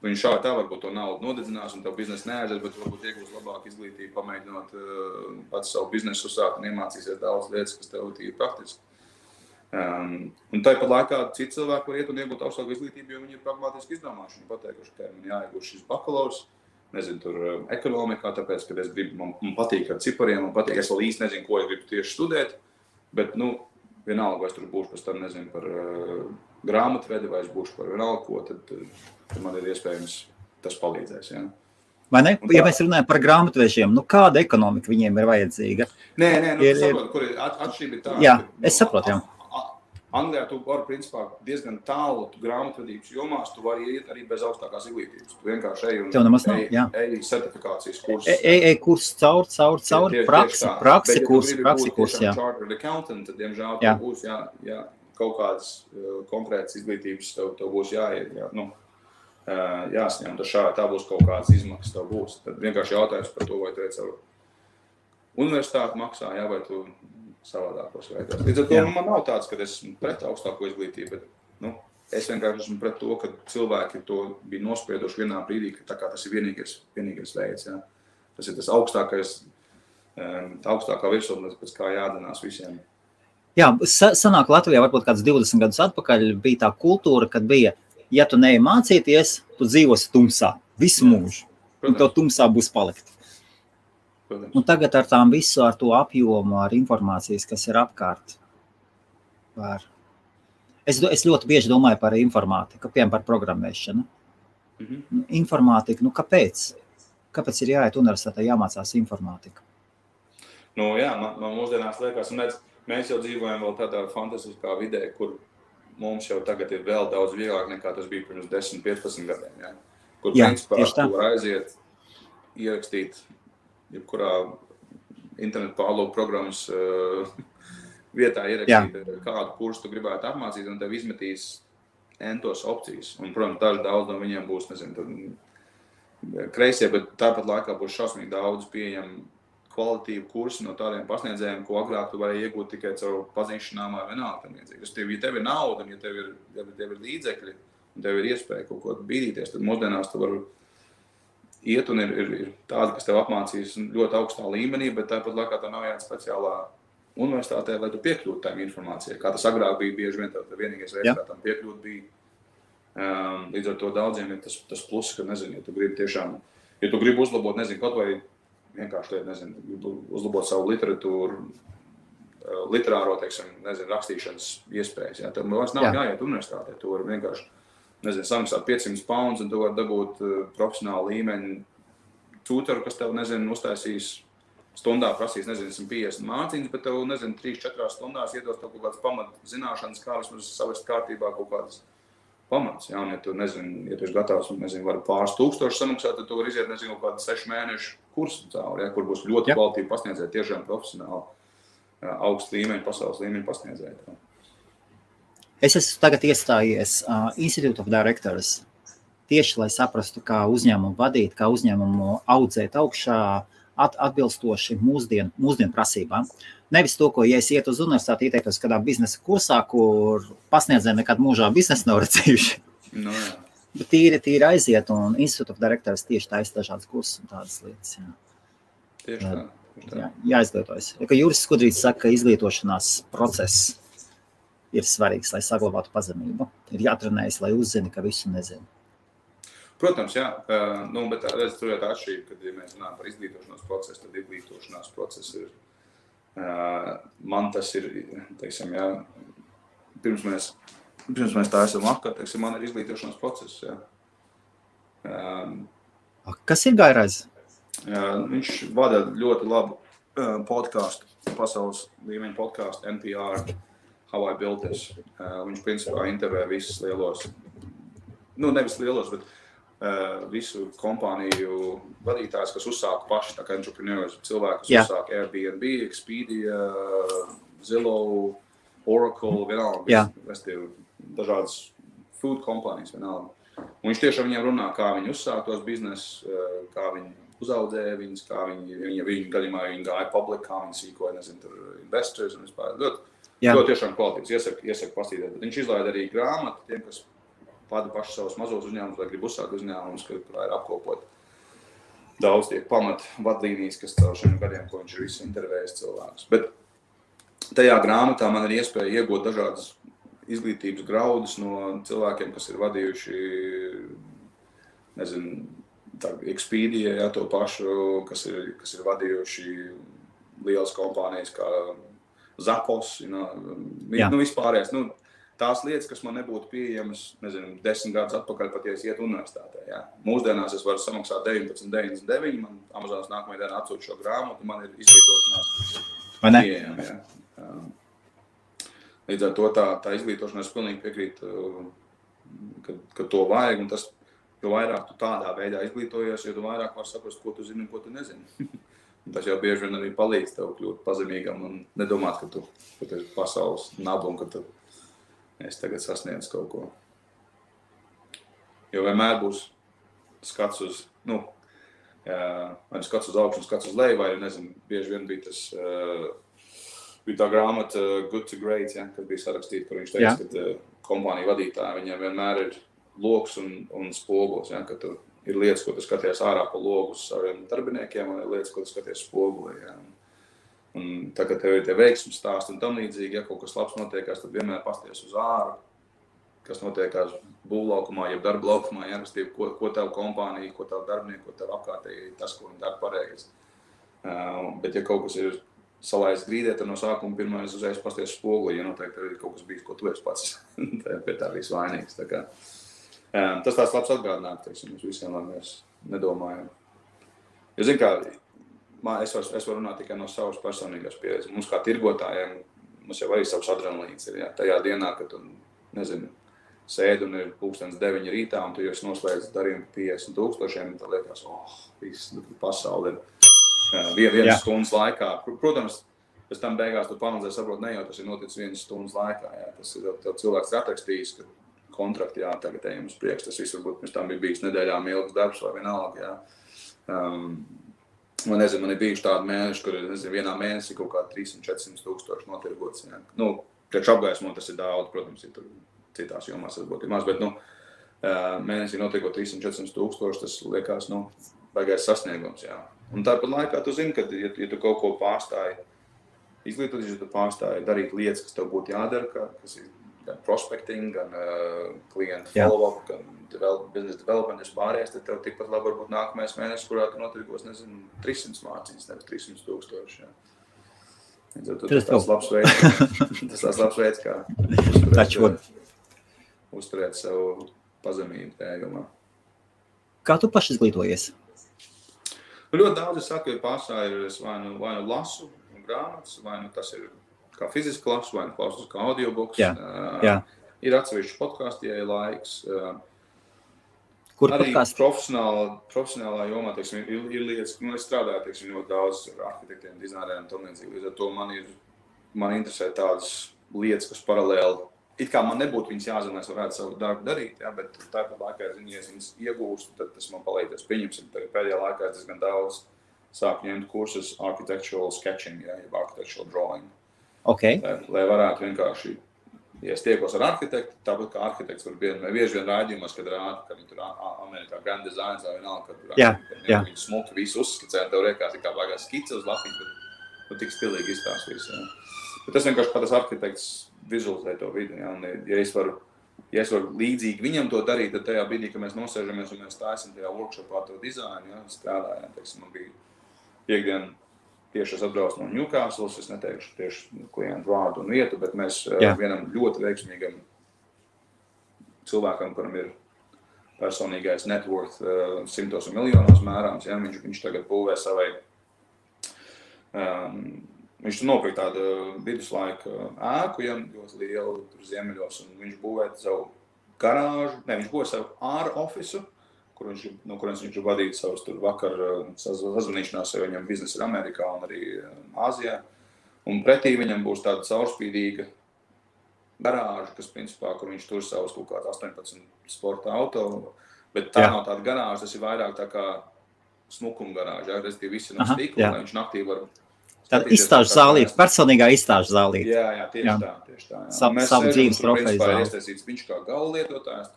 Viņš šādi tā varbūt to naudu nodedzinās un tev biznesu neaiziet, bet varbūt iegūs labāku izglītību, pamēģinot pats savu biznesu uzsākt un iemācīsies daudz lietas, kas tev ir praktiski. Un tāpat laikā citi cilvēki var iet un iegūt augstāku izglītību, jo viņi ir pragmātiski izdomājuši. Viņi pateikuši, ka man jāiegūst šis bakalaurs, nezinu, tur ekonomikā, tāpēc, ka es gribu, man patīk ar cipariem, man patīk, es vēl īsti nezinu, ko es gribu tieši studēt, bet, vienalga, vai es tur būšu pēc tam, nezinu, par grāmatvedi, vai es būšu par vienalga ko, tad man ir iespējams tas palīdzēs, ja. Vai ne? Ja mēs runājam par grāmatvežiem, kāda ekonomika viņiem ir vajadzīga? Nē, saprotu, kur ir atšķirība tā. Jā, es saprotu, jā. Anglijā tu vari, principā, diezgan tālu grāmatvedības jomās, tu vari iet arī bez augstākās izglītības. Tu vienkārši ej certifikācijas kursus. Ej kurs cauri, praksi kurs, jā. Bet, ja tu gribi būt tiešām chartered accountant, tad, diemžēl, tev būs kaut kādas konkrētas izglītības, tev būs jāsņem, tad tā būs kaut kādas izmaksas, tev būs. Tad vienkārši jautājums par to, vai tu ej caur universitāti maksā, vai tu savādākos veidos. Līdz ar to man nav tāds, ka es esmu pret augstāko izglītību, bet es vienkārši esmu pret to, ka cilvēki to bija nospieduši vienā brīdī, ka tā kā tas ir vienīgais veids. Ja. Tas ir tas augstākā virsotne, pēc kā jādanās visiem. Jā, sanāk Latvijā varbūt kāds 20 gadus atpakaļ bija tā kultūra, kad bija, ja tu neej mācīties, tu dzīvosi tumsā visu mūžu. Un tev tumsā būs palikt. Un tagad ar tām visu, ar to apjomu, ar informācijas, kas ir apkārt. Es ļoti bieži domāju par informātiku, piemēram, par programmēšanu. Informātika, kāpēc? Kāpēc ir jāiet universitātē, jāmācās informātika? Jā, man mūsdienās liekas, un mēs jau dzīvojam vēl tādā fantastiskā vidē, kur mums jau tagad ir vēl daudz vieglāk nekā tas bija pirms 10-15 gadiem. Ja? Kur principā tu var aiziet, ierakstīt jebkurā internetu pārlūku programmas vietā ierakstīt kādu kursu tu gribētu apmācīt, un tev izmetīs entos opcijas. Un, protams, daudz no viņiem būs, kreisie, bet tāpat laikā būs šausmīgi daudz pieejam kvalitīvu kursu no tādiem pasniedzējiem, ko agrāk tu vari iegūt tikai caur pazīšanām vai vienalga. Ja tev ir nauda, un ja tev ir līdzekļi, un tev ir iespēja kaut ko bīdīties, tad mūsdienās tu vari iet un ir tādi, kas tev apmācīs ļoti augstā līmenī, bet tāpat laikā tā nav jāiet speciālā universitātē, lai tu piekļūtu tām informācijai. Kā tas agrāk bija, bieži vien tev vienīgais veids, kā tam piekļūt bija. Līdz ar to daudziem ir tas plus, ka, ja tu gribi tiešām, ja tu gribi uzlabot, kaut vai vienkārši, uzlabot savu literatūru, literāro, rakstīšanas iespējas. Ja? Tev vairs nav jāiet universitātē, tu vari vienkārši samaksāt 500 pounds, un tu vari dabūt profesionālu līmeņu tutoru, kas tev, uztaisīs stundā prasīs, 150 mācības, bet tev, 3-4 stundās iedos tev kaut kādas pamatzināšanas, kā vismaz savest kārtībā kaut kādas pamats. Ja? Un ja tu, ja tu esi gatavs, vari pāris tūkstoši samaksāt, tad tu vari iziet, kaut kādu 6 mēnešu kursu cauri, ja? Kur būs ļoti kvalitīvi pasniedzēji, tiešām profesionāli, augstu līmeņu, pasaules līmeņu pasniedzēji. Es esmu tagad iestājies Institute of Directors, tieši lai saprastu, kā uzņēmumu vadīt, kā uzņēmumu audzēt augšā, atbilstoši mūsdienu prasībām. Nevis to, ko, ja es ietu uz universitāti, ieteiktos kādā biznesa kursā, kur pasniedzēji nekad mūžā biznesu nav redzējuši. No, jā. Bet tīri aiziet, un Institute of Directors tieši taisa dažādas kursus un tādas lietas. Jā. Tieši tā. Jā, jāizglītojas. Ja Juris Skudrīts saka, ka izglītošanās process ir svarīgs, lai saglabātu pazemību. Ir jātrenējas, lai uzzini, ka visu nezinu. Protams, jā. Bet tur ir tā atšķirība, kad ja mēs runājam par izglītošanās procesu, tad izglītošanās process ir, man tas ir, jā, pirms mēs tā esam apkārt, man ir izglītošanās process, jā. Kas ir Gairais? Viņš vada ļoti labu podcastu, pasaules līmeņa podcastu, NPR, How I Built This. Viņš principā intervē visus lielos, nevis lielos, bet visu kompāniju vadītājs, kas uzsāka paši, tā kā entrepreneurs, cilvēki, kas uzsāka Airbnb, Expedia, Zillow, Oracle, vienalga, dažādas food kompānijas, vienalga. Un viņš tiešām viņiem runā, kā viņi uzsāka tos biznesus, kā viņi uzaudzēja viņus, kā viņi gadījumā viņi gāja public, kā viņi sīkoja, tur investors un vispār. Ļoti tiešām kvalitīvs, iesaku pastīties. Bet viņš izlaida arī grāmatu tiem, kas vada paši savus mazos uzņēmumus, vai grib uzsākt uzņēmumus, kurā ir apkopot daudz tie pamat vadlīnijas, kas caur šiem gadiem, ko viņš ir visu intervējis cilvēkus. Bet tajā grāmatā man ir iespēja iegūt dažādas izglītības graudus no cilvēkiem, kas ir vadījuši, Expedia, to pašu, kas ir vadījuši lielas kompānijas kā Zappos, vispārējais. Tās lietas, kas man nebūtu pieejamas, 10 gadus atpakaļ, pat ja es ietu universitātē. Ja. Mūsdienās es varu samaksāt 19,99, man Amazonas nākamajā dienā atsūt šo grāmatu, man ir izglītošanās pieejama. Ja. Līdz ar to tā izglītošanās pilnīgi piekrīt, ka to vajag, un tas, jo vairāk tu tādā veidā izglītojies, jo tu vairāk var saprast, ko tu zini un ko tu nezini. Tas jau bieži vien arī palīdz tev kļūt pazemīgam un nedomāt, ka tu esi pasaules nabu un ka tu esi tagad sasniedz kaut ko. Jo vienmēr būs skats uz, vai skats uz augšu un skats uz leju, vai, bieži vien bija bija tā grāmata Good to Great, ja, kad bija sarakstīta, kur viņš teica, ka kompānija vadītāji, viņiem vienmēr ir loks un spogulis, ja, ka tu ir lietas, ko tu skaties ārā pa logu uz saviem darbiniekiem, un ir lietas, ko tu skaties spogulī. Ja. Un tagad tev ir tie veiksmes stāsti un tam līdzīgi, ja kaut kas labs notiekās, tad vienmēr pasties uz āru, kas notiekās būvlaukumā, jeb darba laukumā, ja, ko tev kompānija, ko tev darbinieki, ko tev apkārtēji, tas, ko viņi dara pareizi. Bet ja kaut kas ir salaists grīdē, tad no sākuma pirmais uzreiz pasties spoguli, ja noteikti ir kaut kas bijis, ko tu esi pats pie tā bijis vainīgs. Tā kā, tas tāds labs atgādinājums, teiksim, mums visiem, lai mēs nedomājam. Jo, zin kā, es varu runāt tikai no savas personīgās pieredzes. Mums kā tirgotājiem, mums jau arī savs adrenalīns ir, jā. Tajā dienā, kad tu, nezinu, sēdi un ir 9:00 rītā un tu jau esi noslēdz darījumu 50,000, tad liekas, viss pasauli ir vienas stundas laikā. Protams, pēc tam beigās tu panalizē saprot, ne jau tas ir noticis vienas stundas laikā, jā. Tas ir tev cilvēks atrakstījis, ka kontrakti, jā, tagad ejam uz priekšu. Tas viss varbūt pirms tam bija bijis nedēļām ilgs darbs vai vienalga, jā. Man nezinu, man ir bijuši tādi mēneši, kur, nezinu, vienā mēnesī kaut kā 300-400 tūkstoši notirgots. Ja. Nu, priekš apgaismo tas ir daudz, protams, ir tur citās jomās varbūt ir maz, bet, mēnesī notirgot 300-400 tūkstoši, tas liekas, baigais sasniegums, jā. Un tāpat laikā tu zini, ka, ja tu kaut ko pārstāji, izglītoties, ja tu pārstāji darīt lietas, kas tev būtu jādara, kas ir gan prospecting, gan klientu follow-up, gan business development, vispārējais, tad tev tikpat labi varbūt nākamais mēnesis, kurā tu notirgos, nezinu, 300 mārciņas, nevis 300,000, jā. Tas tāds labs veids, kā uzturēt savu pazemību tajā jomā. Kā tu paši izglītojies? Ļoti daudz es saku, ja pārstāj ir, es vai nu lasu grāmatas, vai nu tas ir kā fiziski lasu, vai nu klausos kā audiobooks. Jā. Ir atsevišķi podkāsti, ja ir laiks. Kur arī podkāsti? Profesionālā jomā, teiksim, ir lietas, es strādāju, teiksim, ļoti daudz ar arhitektiem, dizaineriem un tam līdzīgi. Līdz ar to man interesē tādas lietas, kas paralēli, it kā man nebūtu viņas jāzina, lai es varētu savu darbu darīt, jā, bet tāpat laikā, ja es viņas iegūstu, tad tas man palīdzēs. Pieņemsim, pēdējā laikā es gan daudz sāku ņemt kursus architectural sketching, jā, jeb architectural drawing. Okay. Lai varētu vienkārši, ja es tiekos ar arhitektu, tāpat kā arhitekts var bieži vien raidījumos, kad rāda, ka viņi tur Amerikā Grand Designs vai vienalga, kad viņi smuki visu uzskicē, un tev riekās kā baigās skice uz lapiņu, bet tik stilīgi izstāstīs. Jā. Bet tas vienkārši kā tas arhitekts vizualizē to vidi, jā, un ja es varu līdzīgi viņam to darīt, tad tajā brīdī, kad mēs nosēžamies un mēs taisam tajā workshopā to dizainu, jā, strādājām, teiksim, man bija piekdien tieši es atbraucu no Newcastles, es neteikšu tieši klientu vārdu un vietu, bet mēs vienam ļoti veiksmīgam cilvēkam, kuram ir personīgais net worth 100 miljonos mērāms, ja, viņš tagad būvē savai, viņš nopirka tādu viduslaika ēku, ja, ļoti lielu tur ziemeļos, un viņš būvē savu garāžu, viņš būvē savu āra ofisu, no kurienes viņš vadīja savus tur vakar sazvanīšanās, jo viņam biznesa ir Amerikā un arī Āzijā. Un pretī viņam būs tāda caurspīdīga garāža, kas principā, kur viņš tur savus kaut kāds 18 sporta auto, bet tā nav tāda garāža, tas ir vairāk tā kā smukuma garāža, ja, respektīvi visi no stikla, lai viņš naktī var... Tāda izstāžu zālīte, personīgā izstāžu zālīte. Jā, tieši tā. Savu dzīves profeju zāli. Ir iestaisīts viņš kā gala lietotājs,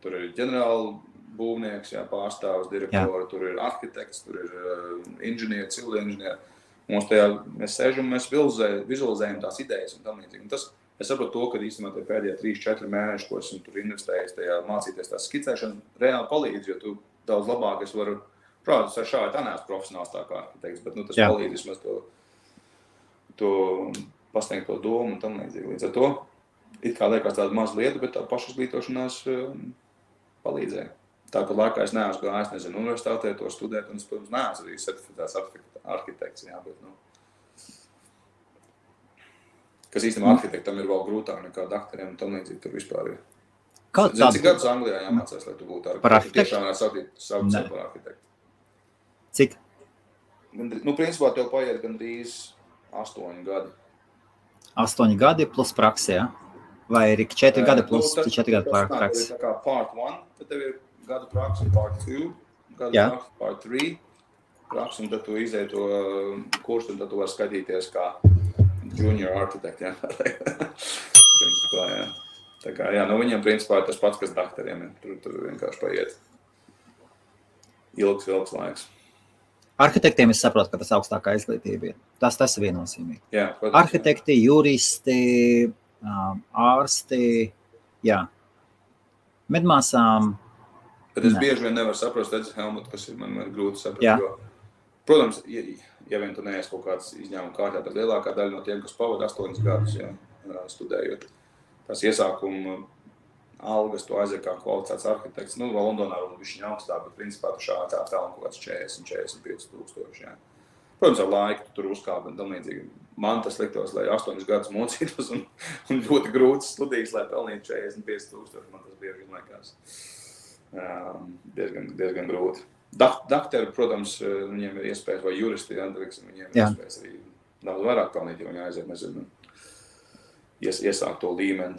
tur ir ģenerāla būvnieks, jā, pārstāvs, direktori, tur ir arhitekts, tur ir inženieri, civili inženieri. Mēs sēžam, mēs vizualizējam tās idejas un tam līdzīgi. Es saprotu to, ka īstenībā tie pēdējie 3-4 mēneši, ko esmu tur investējis tajā mācīties tās skicēšana, reāli palīdz, jo tu daudz labāk es varu, protams, ar šādi tā neesmu profesionāls tā kā arhitekts, bet tas palīdz vismaz to pasniegt to domu un tam līdzīgi. Līdz ar to, it kā liekas tāda maza lieta, bet tā pašizglītošanās palīdzēja. Tāpat laikā es neesmu gājis, nezinu, universitātē to studēt, un es, protams, neesmu arī certificēts arhitekts, jā, bet, kas īstenībā arhitektam ir vēl grūtāk nekā doktoriem un tam līdzīgi tur vispār ir. Cik gadus Anglijā jāmācās, lai tu būtu arhitekts? Tiešām varētu saukt par arhitektu. Cik? Principā tev paiet gandrīz 8 gadi. 8 gadi plus praksē, jā? Vai ir 4 gadi plus 4 gadi praksē? Tā kā part 1, tad tev ir gadu praksa, part 2, gadu praksa, part 3 praksa, un tad tu izēji to kursu, un tad tu vari skatīties kā junior architect, jā. Principā, jā. Tā kā, jā, viņiem principā ir tas pats, kas doktoriem, tur vienkārši paiet ilgs laiks. Arhitektiem es saprotu, ka tas augstākā izglītība ir. Tas ir viennozīmīgi. Jā, protams, arhitekti, juristi, ārsti, jā. Medmāsām. Bet es bieži vien nevaru saprast, Helmut, kas ir man grūti saprast. Jo, protams, ja vien tu neesi kaut kāds izņēmuma kārtā, tad lielākā daļa no tiem, kas pavada 8 gadus, studējot, tās iesākuma algas, tu aiziet kā kvalificēts arhitekts. Nu, Londonā un bišķiņ augstāk, bet principā tu šādā pelni kaut kāds 40-45 tūkstoši. Jā. Protams, ar laiku tu tur uzkāp un tam līdzīgi. Man tas liktos, lai 8 gadus mocītos un ļoti grūtas studijas, lai pelnītu 45 tūkstoši. Man tas bieži liekas diezgan grūti. Dakteri, protams, viņiem ir iespējas, vai juristi, viņiem ir iespējas arī daudz vairāk pelnīt, jo viņi aiziet, nezinu, iesākt to līmeni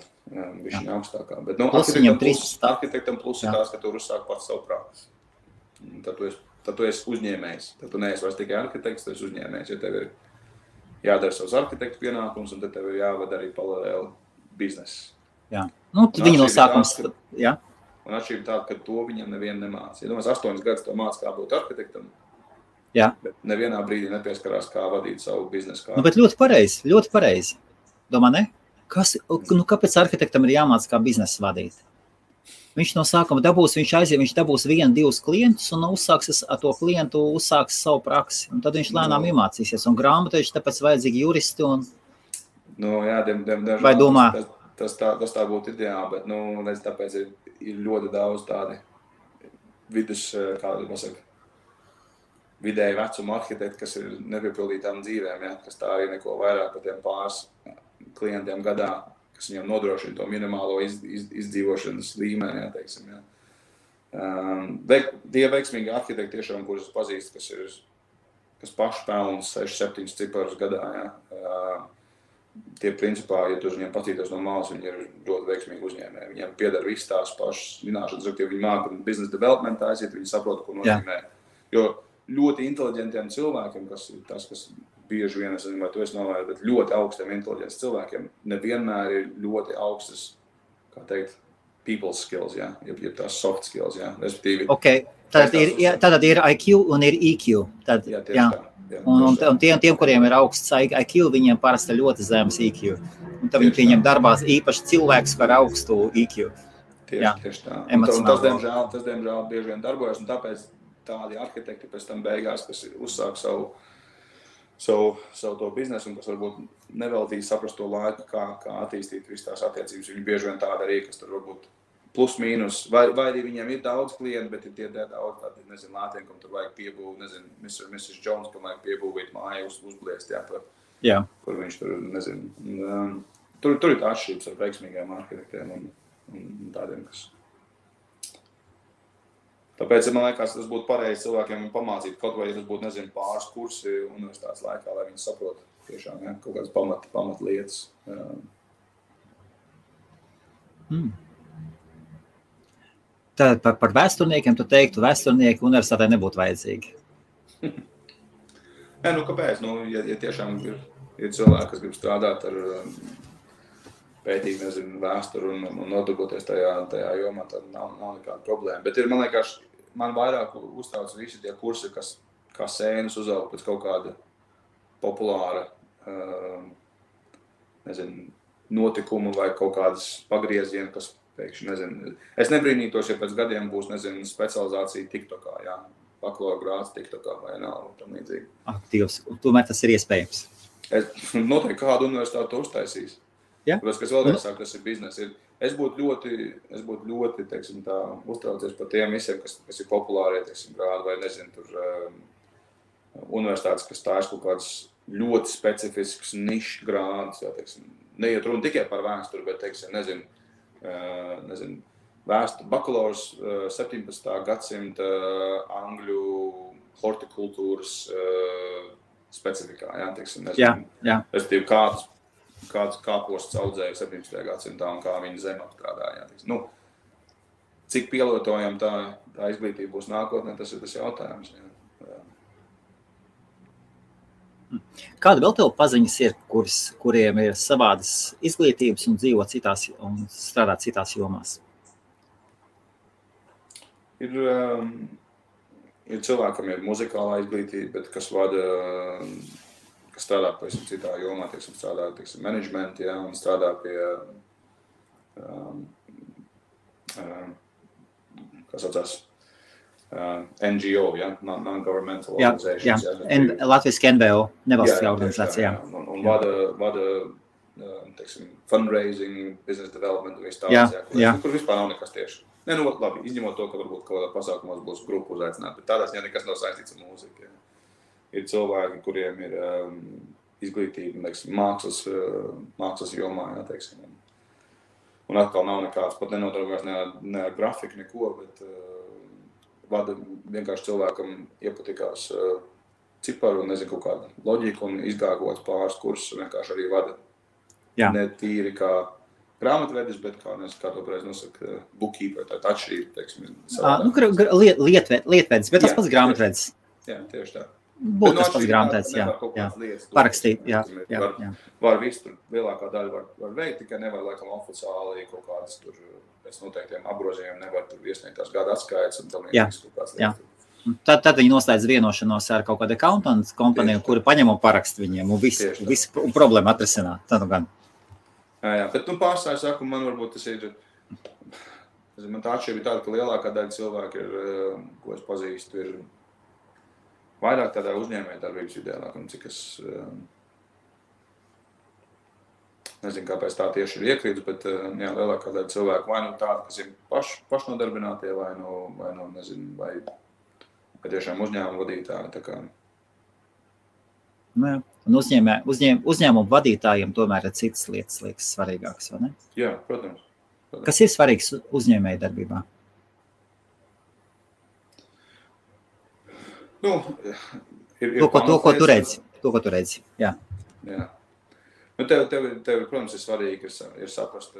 višķiņ augstākā. Bet, arhitektam plus ir tās, ka tu uzsāk pats savu praksi. Tad tu esi uzņēmējs. Tad tu neesi vairs tikai arhitekts, tu esi uzņēmējs. Ja tev ir jādara savus arhitektu pienākumus, un tad tev ir jāvada arī paralēli biznesa. Jā. Nu, viņi no sākums, jā. Un atšķirība tāda, ka to viņam nevienu nemāca. Ja domās, 8 gadus to māca, kā būt arhitektam, bet nevienā brīdī nepieskarās, kā vadīt savu biznesu kārtu. Nu, bet ļoti pareizi. Domā, ne? Kāpēc arhitektam ir jāmāca, kā biznesu vadīt? Viņš no sākuma viņš dabūs 1-2 klientus un ar to klientu uzsāks savu praksi. Un tad viņš lēnām iemācīsies. Un grāmatveži tāpēc vajadzīgi juristi un... Nu, jā, vai domā? Tas tā būtu ideāli, bet, tāpēc ir ļoti daudz tādi vidēji vecuma arhitekti, kas ir nepiepildītām dzīvēm, kas tā arī neko vairāk par tiem pāris klientiem gadā, kas viņam nodrošina to minimālo izdzīvošanas līmeni, teiksim. Tie veiksmīgi arhitekti tiešām, kurus pazīst, kas paši pelna 6-7 ciparus gadā, tie principā, ja tu viņiem patītos no malas, viņi ir ļoti veiksmīgi uzņēmēji. Viņiem pieder viss tās pašas zināšanas, ja viņi māca business development aiziet, viņi saprot, ko nozīmē. Jo ļoti inteliģentiem cilvēkiem, kas ir tas, kas bieži vien, es nezinu, vai tu esi novērojis, bet ļoti augstiem inteliģents cilvēkiem nevienmēr ir ļoti augstas, kā teikt, people skills, ja tās soft skills, respektīvi. Okay. Tātad ir IQ un ir EQ. Un tiem, kuriem ir augsts IQ, viņiem parasti ļoti zemes EQ. Un tad viņi pieņem darbās īpaši cilvēks ar augstu EQ. Tieši tā. Tas, diemžēl, bieži vien darbojas, un tāpēc tādi arhitekti pēc tam beigās, kas uzsāk savu to biznesu, un kas varbūt neveltīs saprast to laiku, kā attīstīt visu tās attiecības. Viņi bieži vien tāda arī, kas tur varbūt plus mīnus, vai arī viņiem ir daudz klientu, bet ir tie daudz tādi, nezinu, lātiem, kam tur vajag piebūvēt, nezinu, Mrs. Jones, kam vajag piebūvēt māju, uzbliest, kur viņš tur, nezinu. Tur ir tā atšķirības ar veiksmīgiem arhitektiem un tādiem, kas. Tāpēc, man liekas, tas būtu pareizi cilvēkiem pamācīt, kaut vai, ja tas būtu, nezinu, pāris kursi universitātes laikā, lai viņi saprot tiešām, kaut kādas pamat lietas. Tad par vēsturniekiem tu teiktu, vēsturnieki universitātē nebūtu vajadzīgi. Kāpēc? Ja tiešām ir cilvēki, kas grib strādāt ar pētīt, nezinu, vēsturu un nodarboties tajā jomā, tad nav nekāda problēma. Bet man liekas, man vairāk uztrauc visi tie kursi, kas kā sēnes uzaug pēc kaut kāda populāra, nezinu, notikuma vai kaut kādas pagrieziena, kas pēkšņi, nezinu. Es nebrīnītos, ja pēc gadiem būs, nezinu, specializācija TikTokā, bakalaura grāds TikTokā vai nav, tam līdzīgi. Aktīvs, tomēr tas ir iespējams. Noteikti kādu universitāti to uztaisīs. Tāpēc, kas vēlreiz sāk, tas ir biznes. Es būtu ļoti, teiksim tā, uztraucies par tiem visiem, kas ir populārie, teiksim, grādi vai, nezinu, tur universitātes, kas tā ir kaut kāds ļoti specifisks nišs grādus, teiksim, neiet runa tikai par vēsturi, bet, teiksim, nezinu, bakalaurs 17. gadsimta angļu hortikultūras specifikā, teiksim, nezinu. Respektīvi, kāds kāposts audzēja 17. gadsimtā un kā viņa zeme apstrādāja. Cik pielietojama tā izglītība būs nākotnē, tas ir tas jautājums. Kāda vēl tev paziņas ir, kuriem ir savādas izglītības un dzīvo citās un strādā citās jomās? ir cilvēkam ir muzikālā izglītība, bet kas strādā pavisam citā jomā, teiksim, strādā, teiksim, menedžmenti, ja, un strādā pie, kas saucās, NGO, ja, non-governmental organizations. Jā, Latviski NVO, nevalstiskā organizācija. Un vada teiksim, fundraising, business development un viss tāds, kur vispār nav nekas tieši. Ne, nu, labi, izņemot to, ka varbūt kaut kādā pasākumos būs grupu uzaicināt, bet tādās nekas nav saistīts ar mūziku. Ja. Ir cilvēki, kuriem ir izglītība, teiksim, mākslas jomā, ja, teiksim. Un atkal nav nekāds, pat nenodarbojas ne ar grafiku, neko, bet vada vienkārši cilvēkam iepatikās ciparu un nezinu kaut kādu loģiku un izgāgots pāris kursus vienkārši arī vada. Jā. Ne tīri kā grāmatvedis, bet kā to pareizi nosaka, bookkeeper, tā atšķirība, teiksim. Lietvedis, bet tas pats grāmatvedis. Jā, tieši tā. Būtu tas pats grāmatvedis, jā. Parakstīt, jā. Var visu tur, lielākā daļa var veikt, tikai nevar, laikam, oficiāli kaut kādas tur pēc noteiktiem apgrozījumiem nevar tur iesniegt tās gada atskaites un tam liekas kaut kāds lietas. Tad viņi noslēdz vienošanos ar kaut kādu accountant kompaniju, kuri paņem un parakst viņiem un visu problēmu atrisināt. Tad gan. Jā, bet pārstāju saku, man varbūt tas ir, man tā atšķirība ir tāda, ka lielākā daļa cilvēku ir, ko es pazīstu, ir vairāk tādā uzņēmējdarbības ideālāk, un cik es nezinu, kāpēc tā tieši ir iekrīts, bet jā, lielākā daļa cilvēku vai nu tāda, kas ir pašnodarbinātie, vai nezinu, vai tiešām uzņēmuma vadītāji, tā kā. Jā. Un uzņēmumu vadītājiem tomēr ir citas lietas, liekas svarīgākas, vai ne? Jā, protams. Kas ir svarīgs uzņēmēju darbībā? Nu, to, ko tu redzi. Jā. Jā. Nu, tev, protams, ir svarīgi ir saprast,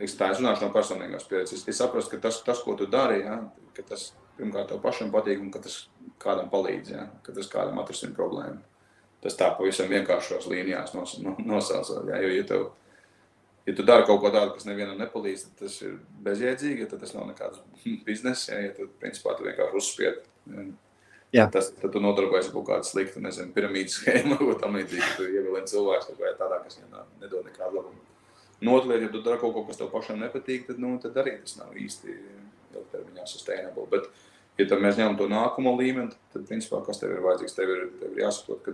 tā es runāšu no personīgās pieredzes, ir saprast, ka tas, ko tu dari, ja, ka tas pirmkārt tev pašam patīk un ka tas kādam palīdz, ja, ka tas kādam atrisina problēmu. Tas tā pavisam vienkāršos līnijās nosaucot, ja, jo ja tu dari kaut ko tādu, kas nevienam nepalīdz, tad tas ir bezjēdzīgi, ja tad tas nav nekāds bizness, ja tad principā tu vienkārši uzspied. Ja. Tad tu nodarbojies kaut kādu sliktu, nezinu, piramīdas schēmu, vai tam līdzīgi, ka tu ievilini cilvēks tādā, kas nedod nekādu labumu. Notlēt, ja tu dari kaut ko, kas tev pašam nepatīk, tad arī tas nav īsti ilgtermiņā sustainable. Bet, ja tad mēs ņemam to nākamo līmeni, tad principā, kas tev ir vajadzīgs, tev ir jāsaprot,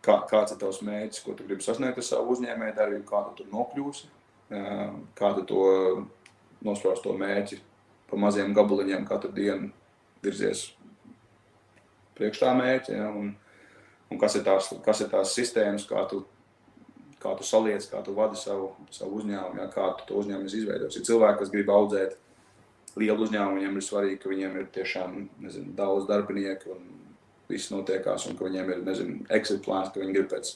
kāds ir tavs mērķis, ko tu gribi sasniegt ar savu uzņēmēju darbību, kā tu tur nokļūsi, kā tu to nospraust to mērķi pa maziem gabaliņiem katru dienu virzies priekš tā mērķi, ja, un kas ir tās sistēmas, kā tu saliec, kā tu vadi savu uzņēmumu, ja, kā tu to uzņēmumu izveidos. Ir cilvēki, kas grib audzēt lielu uzņēmumu, viņiem ir svarīgi, ka viņiem ir tiešām, nezinu, daudz darbinieku un viss notiekās, un ka viņiem ir, nezinu, exit plāns, ka viņi grib pēc,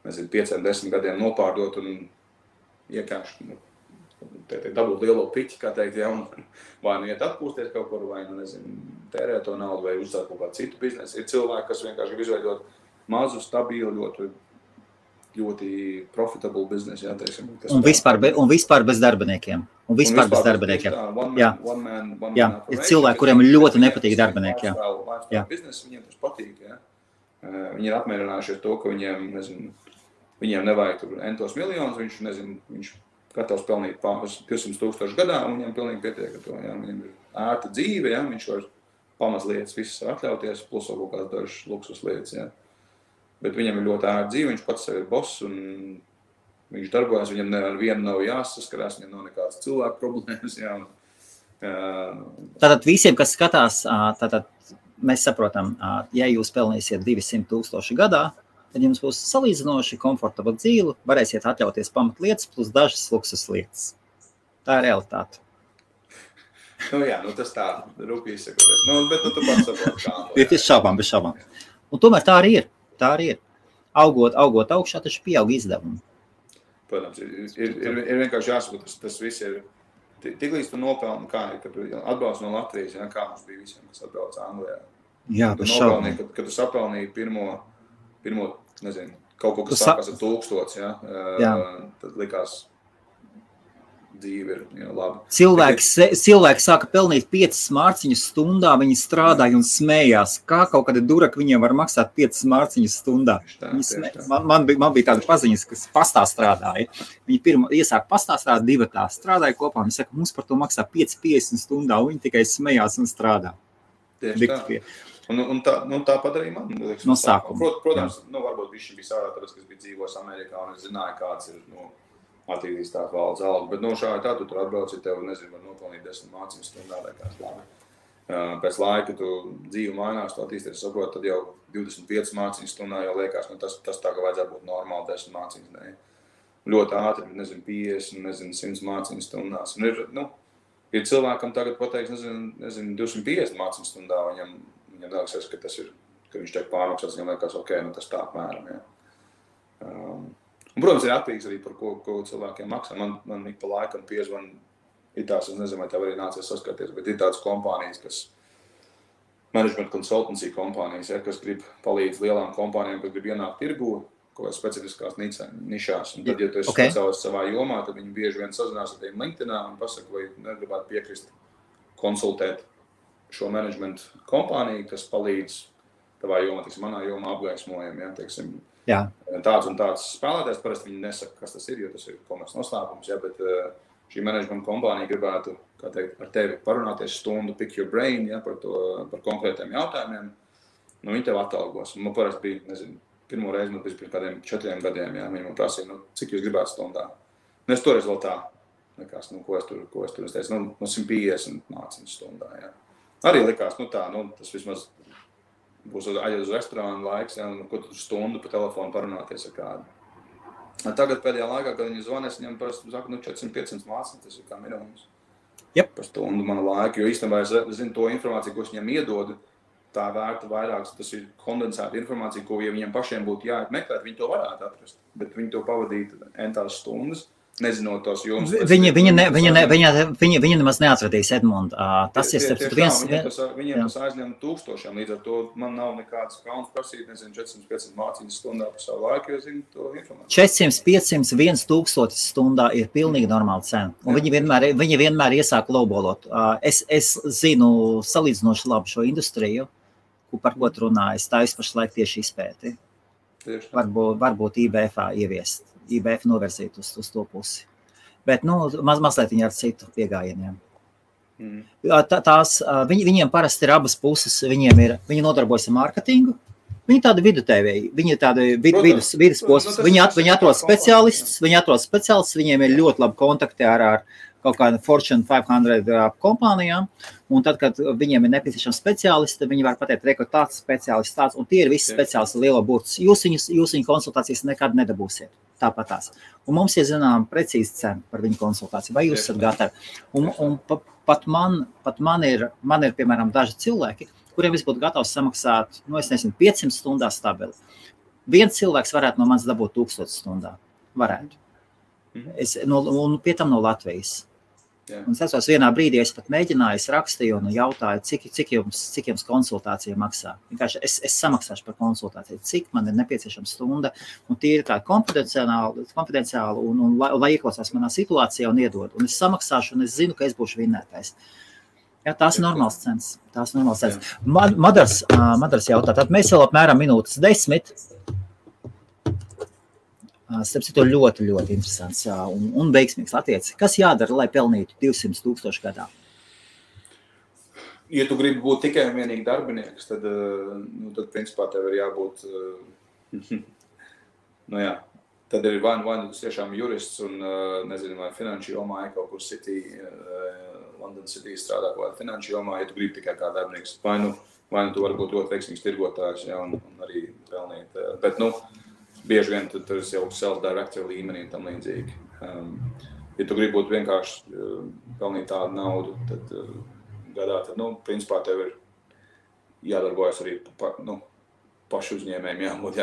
nezinu, 5-10 gadiem nopārdot un iekāpši, dabūt lielo piķi, kā teikt, ja, un vai nu iet atpūsties kaut kur, vai nu, nezinu, tērēt to naudu, vai uzsākt kaut kādu citu biznesu. Ir cilvēki, kas vienkārši grib izveidot mazu, stabilu, ļoti profitable biznesu, jā, teiksim. Un vispār bez darbiniekiem. Jā, ir cilvēki, kuriem ļoti nepatīk darbinieki, jā. Biznesu, viņiem tas patīk, jā. Viņi ir apmierinājušies to, ka viņiem, nezinu, viņiem nevajag tur entos miljonus, viņš gatavs pelnīt pāris 200,000 gadā, un viņiem pilnīgi pietiek ar to, jā. Viņiem ir ērta dzīve, jā, viņš var pamas lietas visas atļauties, plus vēl kaut kādas dažas luksus lietas, jā. Bet viņam ir ļoti ērta dzīve, viņš pats sev ir boss, un viņš darbojas, viņam ar vienu nav jāsaskarās, viņam nav nekādas cilvēku problēmas, jā. Tātad visiem, kas skatās, mēs saprotam, ja jūs pelnīsiet 200,000 gadā, tad jums būs salīdzinoši komfortabla dzīve, varēsiet atļauties pamatlietas plus dažas luksus lietas. Tā ir realitāte. Jā, tas tā, rūpīgi sakoties. Bet tu pats saproti, kā. Bez šaubām. Un tomēr tā arī ir. Augot augšā, taču pieaug izdevumi. Protams, ir vienkārši jāsaprot, tas viss ir. Tiklīdz tu nopelni, kā ir, kad tu atbrauc no Latvijas, ja, kā mums bija visiem, kas atbrauc Anglijā. Jā, bez šaubām. Kad tu sapelnīji pirmo, nezinu, kaut ko, kas sākās ar 1000, ja, tad likās dzīve ir laba. Cilvēki sāka pelnīt 5 mārciņas stundā, viņi strādāja un smējās. Kā kaut kāda duraka viņiem var maksāt 5 mārciņas stundā? Man bija tāda paziņas, kas pastā strādāja. Viņi pirmo iesāka pastā strādāt, 2 tā strādāja kopā. Viņi saka, mums par to maksā 5,50 stundā, un viņi tikai smējās un strādā. Tieši tā. Un tā padarīja man. No sākuma. Protams, varbūt viņš bija sārā, tāpēc, kas bija dzīvos Amerikā, un es zināju, kāds ir, attīstīs tā valdes alga, bet šādi tā, tu tur atbrauc, ja tev, var nopelnīt 10 mārciņas stundā, liekas labi. Pēc laika tu dzīvi mainās, tu attīsties, saprot, tad jau 25 mārciņas stundā jau liekas, tas tā, ka vajadzētu būt normāli 10 mārciņas, ne. Ļoti ātri, 50, 100 mārciņas stundās. Un ir cilvēkam tagad pateiks, 250 mārciņas stundā, viņam liekas, ka tas ir, ka viņš tiek pārmaksāts, viņam liekas, ok, tas tā apmēram, jā. Un, protams, ir attīgs arī par ko cilvēkiem maksā. Man ik pa laikam piezvan, ir tās, es nezinu, vai tev arī nācies saskarties, bet ir tādas kompānijas, kas management consultancy kompānijas, kas grib palīdz lielām kompānijām, kas grib ienākt tirgū, kaut kādas specifiskās nišās. Un tad, ja tu esi speciālists savā jomā, tad viņi bieži vien sazinās ar tiem LinkedInā un pasaka, vai negribētu piekrist konsultēt šo management kompāniju, kas palīdz tavā jomā, manā jomā apgaismojam, teiksim, tāds un tāds spēlētājs, parasti viņi nesaka, kas tas ir, jo tas ir komerces noslēpums, bet šī management kompānija gribētu, kā teikt, ar tevi parunāties stundu, pick your brain, par konkrētiem jautājumiem, viņi tev atalgos. Un man parasti bija, pirmo reizi man bija pirms kādiem 4 gadiem, viņi man prasīja, cik jūs gribētu stundā. Es toreiz vēl tā, likās, ko es tur, es teicu, 150 mārciņas stundā, Arī likās, tas vismaz būs aiziet uz restorānu laiks, ko tu stundu pa telefonu parunāties ar kādu. Tagad pēdējā laikā, kad viņi zvanēs, viņam parasti saka, 400-500 mārciņas, tas ir kā minimums. Par stundu mana laika, jo īstenībā es zinu to informāciju, ko es viņam iedodu, tā vērta vairāk, tas ir kondensēta informācija, ko, ja viņiem pašiem būtu jāmeklēt, viņi to varētu atrast, bet viņi to pavadītu entās stundas. Nezinot tos jomas. Viņi nemaz neatradīs Edmundu. Tas ir viens. Viņiem tas aizņem 1000, līdz ar to man nav nekādas kauns prasīt, 400-500 mārciņas stundā par savu laiku, jo zinu to informāciju. 400, 500, 1000 stundā ir pilnīgi normāla cena. Un viņi vienmēr iesāk lowballot. Es zinu salīdzinoši labi šo industriju, par ko tu runāji. Tā pašlaik tieši izpēti. Varbūt IBF-ā ieviest. IBF novirzīt uz to pusi. Bet, mazliet viņi ar citu piegājieniem. Viņiem parasti ir abas puses. Viņi nodarbojas ar mārketingu. Viņi tādi vidutevēji. Viņi ir tādi vidusposms. Viņi atrod speciālistus. Viņiem ir ļoti labi kontakti ar kaut kādu Fortune 500 kompānijām. Un tad, kad viņiem ir nepieciešams speciālisti, viņi var pateikt, ka tāds speciālists tāds, un tie ir visi speciālisti lielo burts. Jūs viņu konsultācijas nekad nedabūsiet. Tāpatās. Un mums ir zinām precīzi cena par viņu konsultāciju. Vai jūs esat gatavi? Un pat man ir, piemēram, daži cilvēki, kuriem es būtu gatavs samaksāt, 500 stundās stabili. Viens cilvēks varētu no manis dabūt 1000 stundā. Varētu. Un pie tam no Latvijas. Un es esmu vienā brīdī, es pat mēģināju, es rakstīju un jautāju, cik jums konsultācija maksā. Vienkārši es samaksāšu par konsultāciju, cik man ir nepieciešama stunda, un tie ir tā konfidenciāli un lai ieklausās manā situācijā un iedod. Un es samaksāšu, un es zinu, ka es būšu vinnētais. Tās ir normāls cenas. Madars jautā, tad mēs vēl apmēram minūtes 10. Starp citu ļoti, ļoti interesants un veiksmīgs latviečs. Kas jādara, lai pelnītu 200,000 gadā? Ja tu gribi būt tikai un vienīgi darbinieks, tad principā tev ir jābūt, tad ir vai tu tiešām jurists un, nezinu, vai finanšu jomā, kaut kur London City strādā kaut kādā finanšu jomā, ja tu gribi tikai kā darbinieks. Vai nu tu vari būt ļoti veiksmīgs tirgotājs, un arī pelnīt. Bet, bieži vien tur ir jau self-director līmenī un tam līdzīgi. Ja tu gribi būt vienkārši pelnīt tādu naudu, tad gadā, principā tev ir jādarbojas arī pašu uzņēmējiem, jābūt,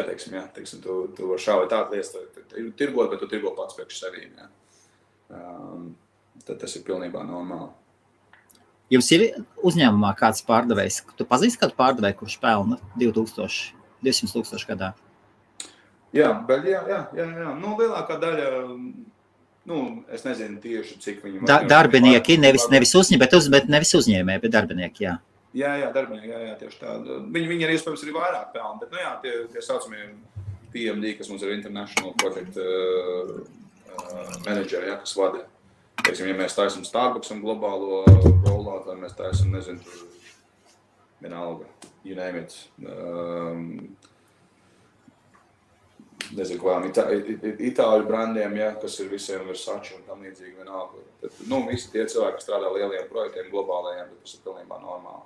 teiksim, tu var šā vai tā lietas tirgot, bet tu tirgo pats priekš sevīm, Tad tas ir pilnībā normāli. Jums ir uzņēmumā kāds pārdevējs? Tu pazīsti kādu pārdevēju, kurš pelna 200,000 gadā? Jā, bet jā. Lielākā daļa Es nezinu tieši, cik viņi... Darbinieki, nevis uzņēmēji, bet darbinieki, jā. Jā, darbinieki, tieši tā. Viņi ir iespējams arī vairāk pelni, bet, tie saucamie PMD, kas mums ir International Project Manager, kas vada. Teiksim, ja mēs taisam Starbucksam globālo rollout, vai mēs taisam, nezinu, vienalga, you name it. Nezinu, kādām itāļu brandiem, kas ir visiem Versace un tam līdzīgi vienalga. Bet, visi tie cilvēki, kas strādā lieliem projektiem, globālajiem, bet tas ir pilnībā normāli.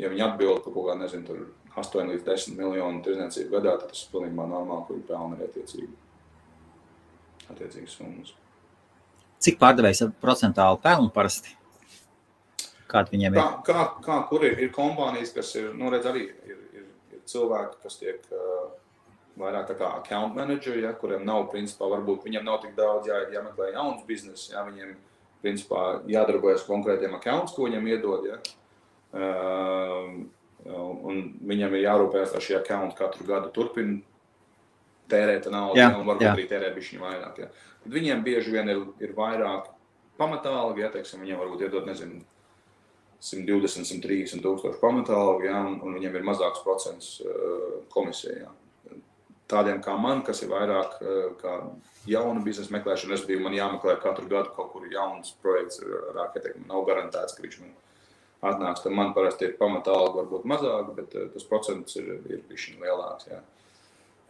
Ja viņi atbild par kaut kā, nezinu, tur 8 līdz 10 miljonu tirdzniecību gadā, tad tas ir pilnībā normāli, kur ir pelni ir attiecīgas summas. Cik pārdevējs procentāli pelnu parasti? Kādi viņiem ir? Kur ir kompānijas, kas ir, redz, arī ir cilvēki, kas tiek vairāk tā kā account manageri, kuriem nav, principā, varbūt viņiem nav tik daudz jāmeklē jauns biznes, viņiem, principā, jādarbojas konkrētiem accounts, ko viņiem iedod, un viņam ir jārūpējas, lai šie accounti katru gadu turpina tērēt naudu, un varbūt arī tērē bišķiņu vairāk. Tad viņiem bieži vien ir vairāk pamatālgi, teiksim, viņiem varbūt iedod, nezinu, 120, 130 tūkstoši pamatālgi, un viņiem ir mazāks procents komisijā. Tādiem kā man, kas ir vairāk kā jauna biznesa meklēšana, respektīvi man jāmeklē katru gadu kaut kur jauns projekts ar arhitektu, nav garantēts, ka viņš man atnāks, tad man parasti ir pamatālgi varbūt mazāk, bet tas procents ir bišķiņ lielāks,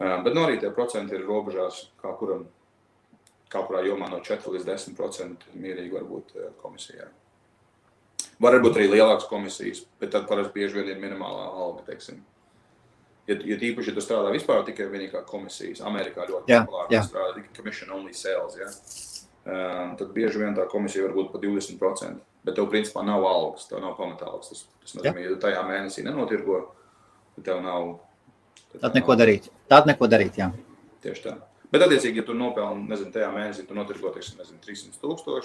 Bet arī tie procenti ir robežās kā kurā jomā no 4 līdz 10% mierīgi varbūt komisijā. Varbūt arī lielākas komisijas, bet tad parasti bieži vien ir minimālā alga, teiksim. Ja tīpaši, ja tu strādā vispār tikai vienīgā komisijas, Amerikā ļoti populāri strādā tikai commission only sales, tad bieži vien tā komisija var būt pa 20%, bet tev principā nav algas, tev nav pamatālgas. Tas nozīmē, ja tu tajā mēnesī nenotirgo, tad tev nav... Tad neko darīt, jā. Tieši tā. Bet attiecīgi, ja tu nopelni, nezinu, tajā mēnesī tu notirgo, teiksim, 300 000,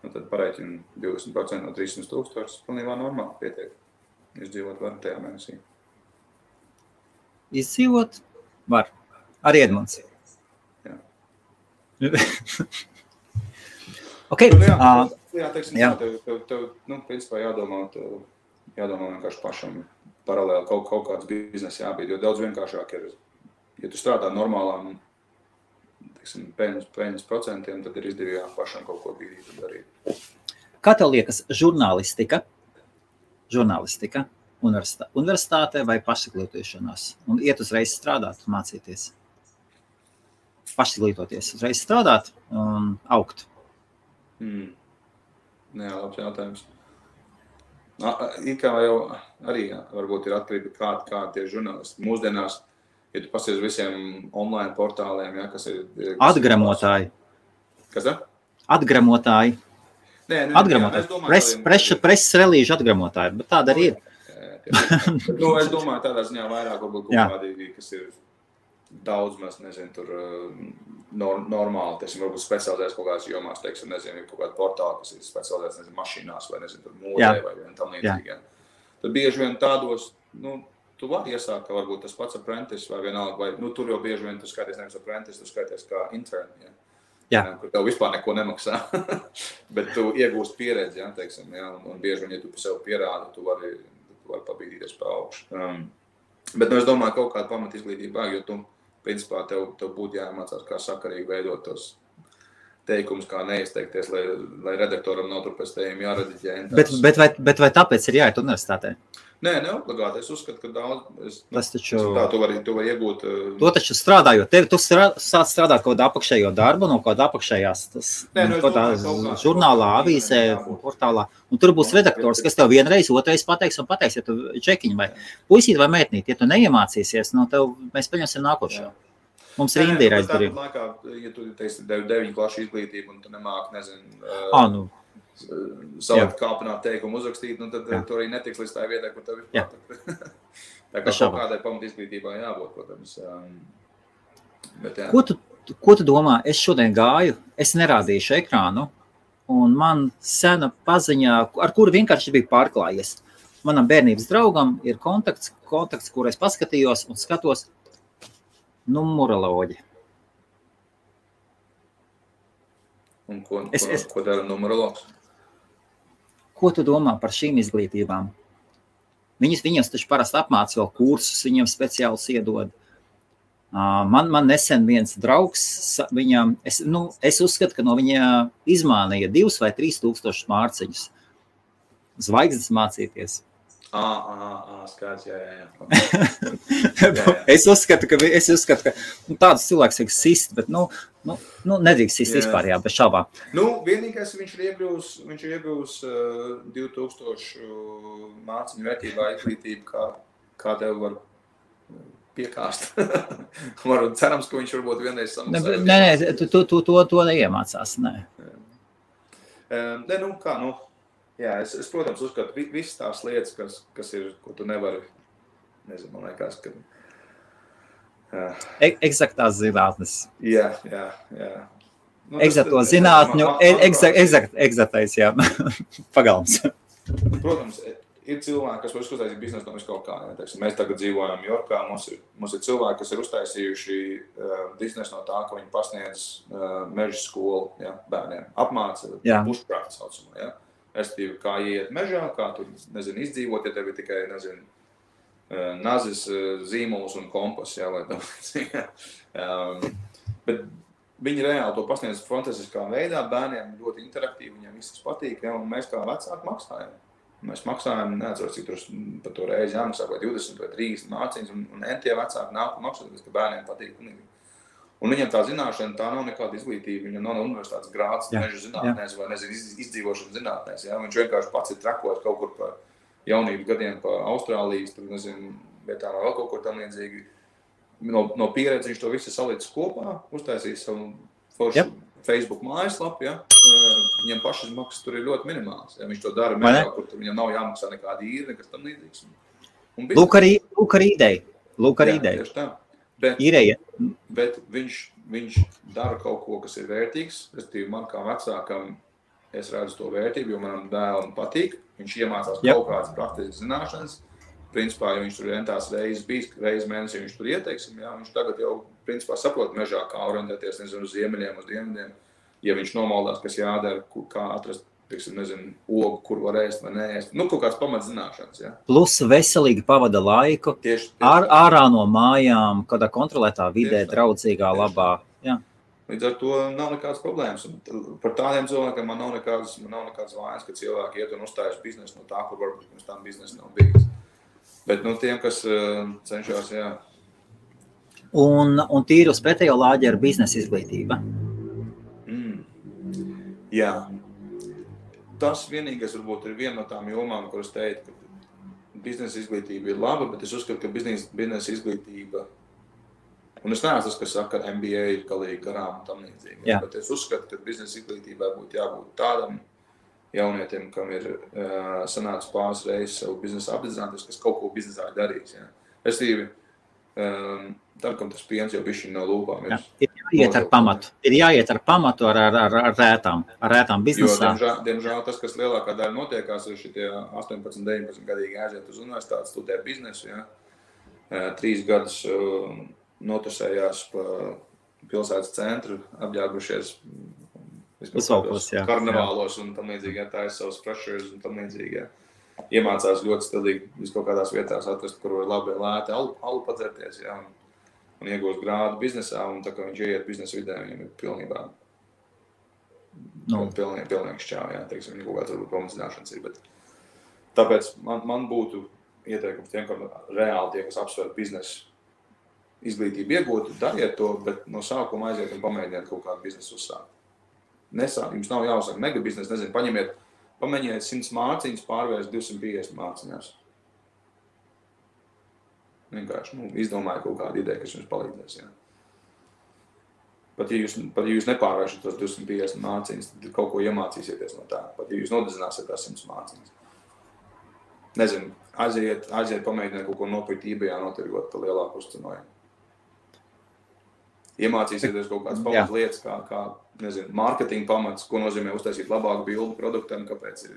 tad pareiķini 20% no 300 000, pilnībā normāli pietiek. Izdzīvot var tajā mēnesī. Izdzīvot var. Arī Edmunds. Jā. Okay. Teiksim, tev principā jādomā vienkārši pašam paralēli kaut kāds biznesa jābūt, jo daudz vienkāršāk ir, ja tu strādā normālām, teiksim, peļņas procentiem, tad ir izdevīgāk pašam kaut ko bīdīt un darīt. Kā tev liekas žurnālistika universitātē vai pašizglītošanās? Un iet uzreiz strādāt, mācīties? Pašizglītoties, uzreiz strādāt un augt? Jā, labs jautājums. Kā jau arī varbūt ir atkarība, kā tie žurnālisti. Mūsdienās, ja tu pasies visiem online portāliem, kas ir... Atgramotāji. Kas tā? Atgramotāji. Atgramotāji. Preses relīžu atgramotāji, bet tāda arī ir. Es domāju, tādā ziņā vairāk varbūt kaut kādīgi, kas ir daudz, mēs nezinu, tur normāli, teiksim, varbūt specializēs kaut kādās jomās, teiksim, nezinu, kaut kāda portāla, kas ir specializēs, nezinu, mašīnās vai, nezinu, tur mūdē vai tam līdzīgi. Tad bieži vien tādos, tu vari iesākt, ka varbūt tas pats apprentice vai vienalga, vai, tur jau bieži vien tu skaities nevis apprentice, tu skaities kā intern, kur tev vispār neko nemaksā, bet tu iegūst pieredzi, teiksim, un bieži vien, ja tu sev pierādi, tu vari pabīdīties pa augšu. Bet, es domāju, kaut kādu pamat izglītību vajag, jo tu, principā, tev būtu jāmācās, kā sakarīgi veidot tos teikumus, kā neizteikties, lai redaktoram nav tur pēc tējiem jārediģē. Bet vai tāpēc ir jāiet universitātē? Nē, neobligāti. Es uzskatu, ka daudz... Tas taču... Tu vari iegūt... To taču strādājot. Tu sāc strādāt kaut kādu apakšējo darbu, no kāda apakšējās žurnālā, avīzē, portālā. Un tur būs redaktors, kas tev vienreiz, otrais pateiks, ja tu čekiņi vai puisīt vai mētnīt. Ja tu neiemācīsies, mēs paņemsim nākošo. Mums ir Indija aizdarība. Ja tu teiksi 9 klašu izglītību un tu nemāki, nezinu... Salikt kāpināt teikumu uzrakstīt, tad tu arī netiks līdz tā vietā, kur tev ir patakt. Tā kā kaut kādai pamat izglītībā jābūt, protams. Bet, Ko tu domā? Es šodien gāju, es nerādīšu ekrānu, un man sena paziņā, ar kuru vienkārši bija pārklājies. Manam bērnības draugam ir kontakts, kur es paskatījos un skatos numeroloģi. Un ko dara numerologs? Ko tu domā par šīm izglītībām? Viņus taču parasti apmāca vēl kursus, viņiem speciāls iedod. Man nesen viens draugs, es uzskatu, ka no viņa izmānīja 2 vai 3 tūkstošus mārciņus. Zvaigznes mācīties. Skaidrs, jā. Es uzskatu, ka tādus cilvēkus vajag sist, bet, nedrīkst sist vispār, jā, bez šaubām. Vienīgais viņš ir iegūs 2000 māciņu vērtībā izglītību, kā tev var piekāst. Cerams, ka viņš varbūt vienreiz samaksā. Nē, to neiemācās, nē. Jā, es protams, uzskatu, visas tās lietas, kas ir, ko tu nevari, nezinu, man liekas, ka... Eksaktās zinātnes. Jā. Eksato zinātņu, eksaktais, jā, pagalms. Protams, ir cilvēki, kas var uztaisīt biznesu no viskaut kā. Mēs tagad dzīvojam Jorkā, mums ir cilvēki, kas ir uztaisījuši biznesu no tā, ka viņi pasniedz meža skolu bērniem. Apmāca bushcraft saucamo, jā. Estīvi, kā iet mežā, kā tur, izdzīvot, ja tev ir tikai, nazis, zīmols un kompas, lai bet viņi reāli to pasniedz fantastiskā veidā, bērniem ļoti interaktīvi, viņiem viss patīk, un mēs kā vecāki maksājam. Mēs maksājam, neatceros, cik tur par to reizi jāmaksā, vai 20 vai 30 māciņas, un entie vecāki nāk un maksāt, ka bērniem patīk. Un viņam tā zināšana, tā nav nekāda izglītība, viņam nav universitātes grāds meža zinātnēs vai, izdzīvošanas zinātnēs. Ja? Viņš vienkārši pats ir trakojis kaut kur pa jaunības gadiem, pa Austrālijas, tur, vietām vēl kaut kur tam līdzīgi. No pieredzi viņš to visu salicis kopā, uztaisīs savu foršu Facebook mājaslapu, ja? Viņam pašas maksas tur ir ļoti minimāls. Ja? Viņš to dara mežā, kur viņam nav jāmaksā nekāda īra, nekas tam līdzīgs. Lūk arī ideja. Tieši tā. Bet viņš dara kaut ko, kas ir vērtīgs. Respektīvi, man kā vecākam es redzu to vērtību, jo manam dēlam patīk. Viņš iemācās kaut kādas praktiskas zināšanas. Principā, ja viņš tur entās reizes mēnesī, viņš tur ieteiksim, viņš tagad jau principā saprot mežā, kā orientēties, uz ziemeļiem, uz dienvidiem. Ja viņš nomaldās, kas jādara, kā atrast, ogu, kur var ēst vai neēst. Kaut kāds pamatzināšanas, Plus veselīgi pavada laiku, ārā no mājām, kādā kontrolētā vidē, draudzīgā, labā. Jā. Līdz ar to nav nekādas problēmas. Un par tādiem cilvēkiem man nav nekādas vainas, ka cilvēki iet un uzstājas biznesu no tā, kur varbūt pirms tam biznesa nav bijis. Bet tiem, kas cenšas, Un tīri uz pretējo lāģi ar biznesa izglītība. Jā. Tas vienīgais varbūt ir viena no tām jomām, kuras teikt, ka biznesa izglītība ir laba, bet es uzskatu, ka biznesa izglītība, un es neesmu tas, kas saka, ka MBA ir galīgi garām un tam līdzīgi, bet es uzskatu, ka biznesa izglītībai būtu jābūt tādam jaunietim, kam ir sanācis pāris reizes savu biznesu apdedzināties, kas kaut ko biznesā darīs. Tad, kam tas piens jau bišķiņ no lūpām ir. Ir jāiet ar pamatu ar rētām biznesā. Jo, diemžēl tas, kas lielākā daļa notiekās, ir šitie 18, 19 gadīgi aiziet uz universitāti, studē biznesu, 3 gadus notusējās pa pilsētas centru, apģērbušies karnevālos un tam līdzīgi, tājas savus pressures un tam līdzīgi, Iemācās ļoti stilīgi kaut kādās vietās atrast, kur var labi lēti alu padzerties, un iegūst grādu biznesā, un tā kā viņš ieiet biznesa vidē, viņam ir pilnībā pilnīgi šķāv, teiksim, viņa kaut kāds varbūt pamatzināšanas ir, bet tāpēc man būtu ieteikums tiem, ka reāli tie, kas apsver biznesu izglītību iegūt, dariet to, bet no sākuma aiziet un pamēģiniet kaut kādu biznesu uzsākt. Jums nav jāuzsāk mega biznesu, pamēģiniet 100 māciņas, pārvērst 250 māciņās. Vienkārši, izdomāju kaut kādu ideju, kas jums palīdzēs, Pat ja jūs nepārvēršat tos 250 māciņas, tad kaut ko iemācīsieties no tā. Pat ja jūs nodedzināsiet tās 100 māciņas. Nezinu, aiziet pamēģiniet kaut ko nopirkt eBayā notirgot par lielāku uzcenojumu. Iemācīsieties kaut kādas pamats lietas, kā mārketinga pamats, ko nozīmē uztaisīt labāku bildu produktam, kāpēc ir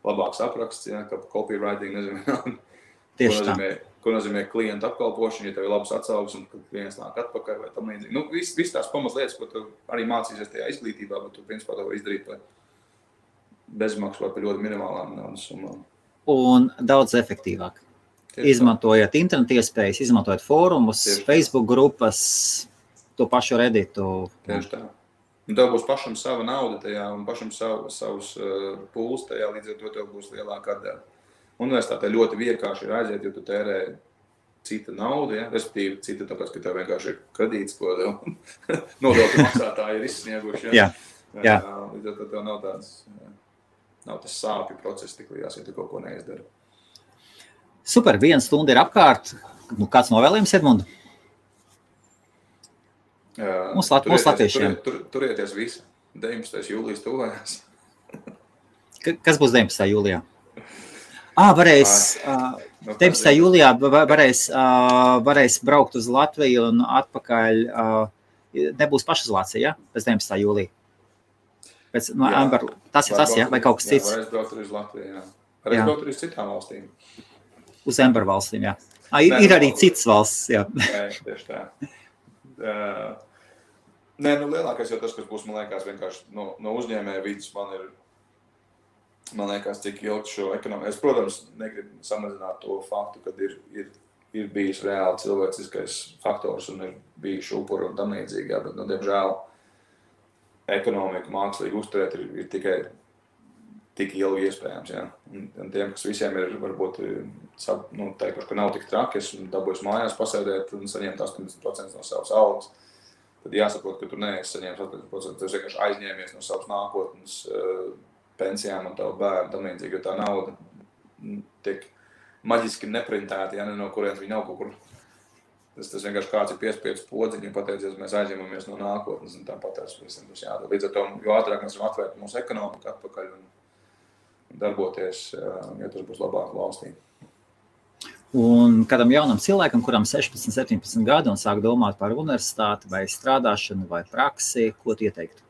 labāks apraksts, kā copywriting, ko nozīmē ko nozīmē klientu apkalpošana, ja tev ir labs atsauksmes, un kad klients nāk atpakaļ vai tam līdzīgi. Viss tās pamatlietas, ko tu arī mācīsies tajā izglītībā, bet tu principā to izdarīt par bezmaksu vai par ļoti minimālām naudas summām. Un daudz efektīvāk. Izmantojot internetu iespējas, izmantojot fórumus, Facebook grupas, to pašu Redditu. Tieši tā. Un tev būs pašam sava nauda tajā un pašam savus pūles tajā, līdz ar to tev būs lielāka atdeva. Universitātē ļoti vienkārši ir aiziet, jo tu tērē cita nauda, ja? Respektīvi cita tāpēc, ka tev vienkārši ir kredīts, ko nodokļu maksātāji ir izsnieguši. Ja? Jā. Līdz ar to tev nav tas sāpju process tik liels, ja tu kaut ko neizdari. Super, 1 stunda ir apkārt. Kāds novēlējums, Edmundu? Mums latviešiem. Turieties visi. 19. jūlijas tuvējās. Kas būs 19. jūlijā? Varēs 19. jūlijā varēs braukt uz Latviju un atpakaļ. Nebūs pašizolācija, ja? Pēc 19. jūlija. Tas ir tas, ja? Vai kaut kas cits? Jā, varēs braukt arī uz Latviju, jā. Varēs braukt arī uz citām valstīm. Uz Ember valstīm, jā. Ir arī citas valsts, jā. Nē, tieši tā. Lielākais jau tas, kas būs, man liekas, vienkārši no uzņēmēja vidas, man liekas, cik ilgi šo ekonomiku. Es, protams, negribu samazināt to faktu, kad ir bijis reāli cilvēciskais faktors un ir bijuši upuri un tam līdzīgi, jā, bet, diemžēl, ekonomiku mākslīgi uzturēt ir tikai tik ilgi iespējams, jā. Un tiem, kas visiem ir, varbūt, teikuši, ka nav tik traki, es dabūju mājās pasēdēt un saņemt 80% no savas algas, tad jāsaprot, ka tu neesi saņēmis 80%, tu vienkārši aizņēmies no savas nākotnes pensijām un tavu bērnu, tam līdzīgi, jo tā nauda tiek maģiski neprintēta, ja ne no kurienes viņa nav kaut kur. Tas vienkārši kāds ir piespiedis podziņu un pateicies, mēs aizņemamies no nākotnes un tāpat visam būs jādara. Līdz ar to, jo ātrāk mēs varam atvērt mūsu ekonomiku atpakaļ un darboties, ja tas būs labāk valstī. Un kādam jaunam cilvēkam, kuram 16, 17 gadi un sāk domāt par universitāti vai strādāšanu vai praksi, ko tu ieteiktu?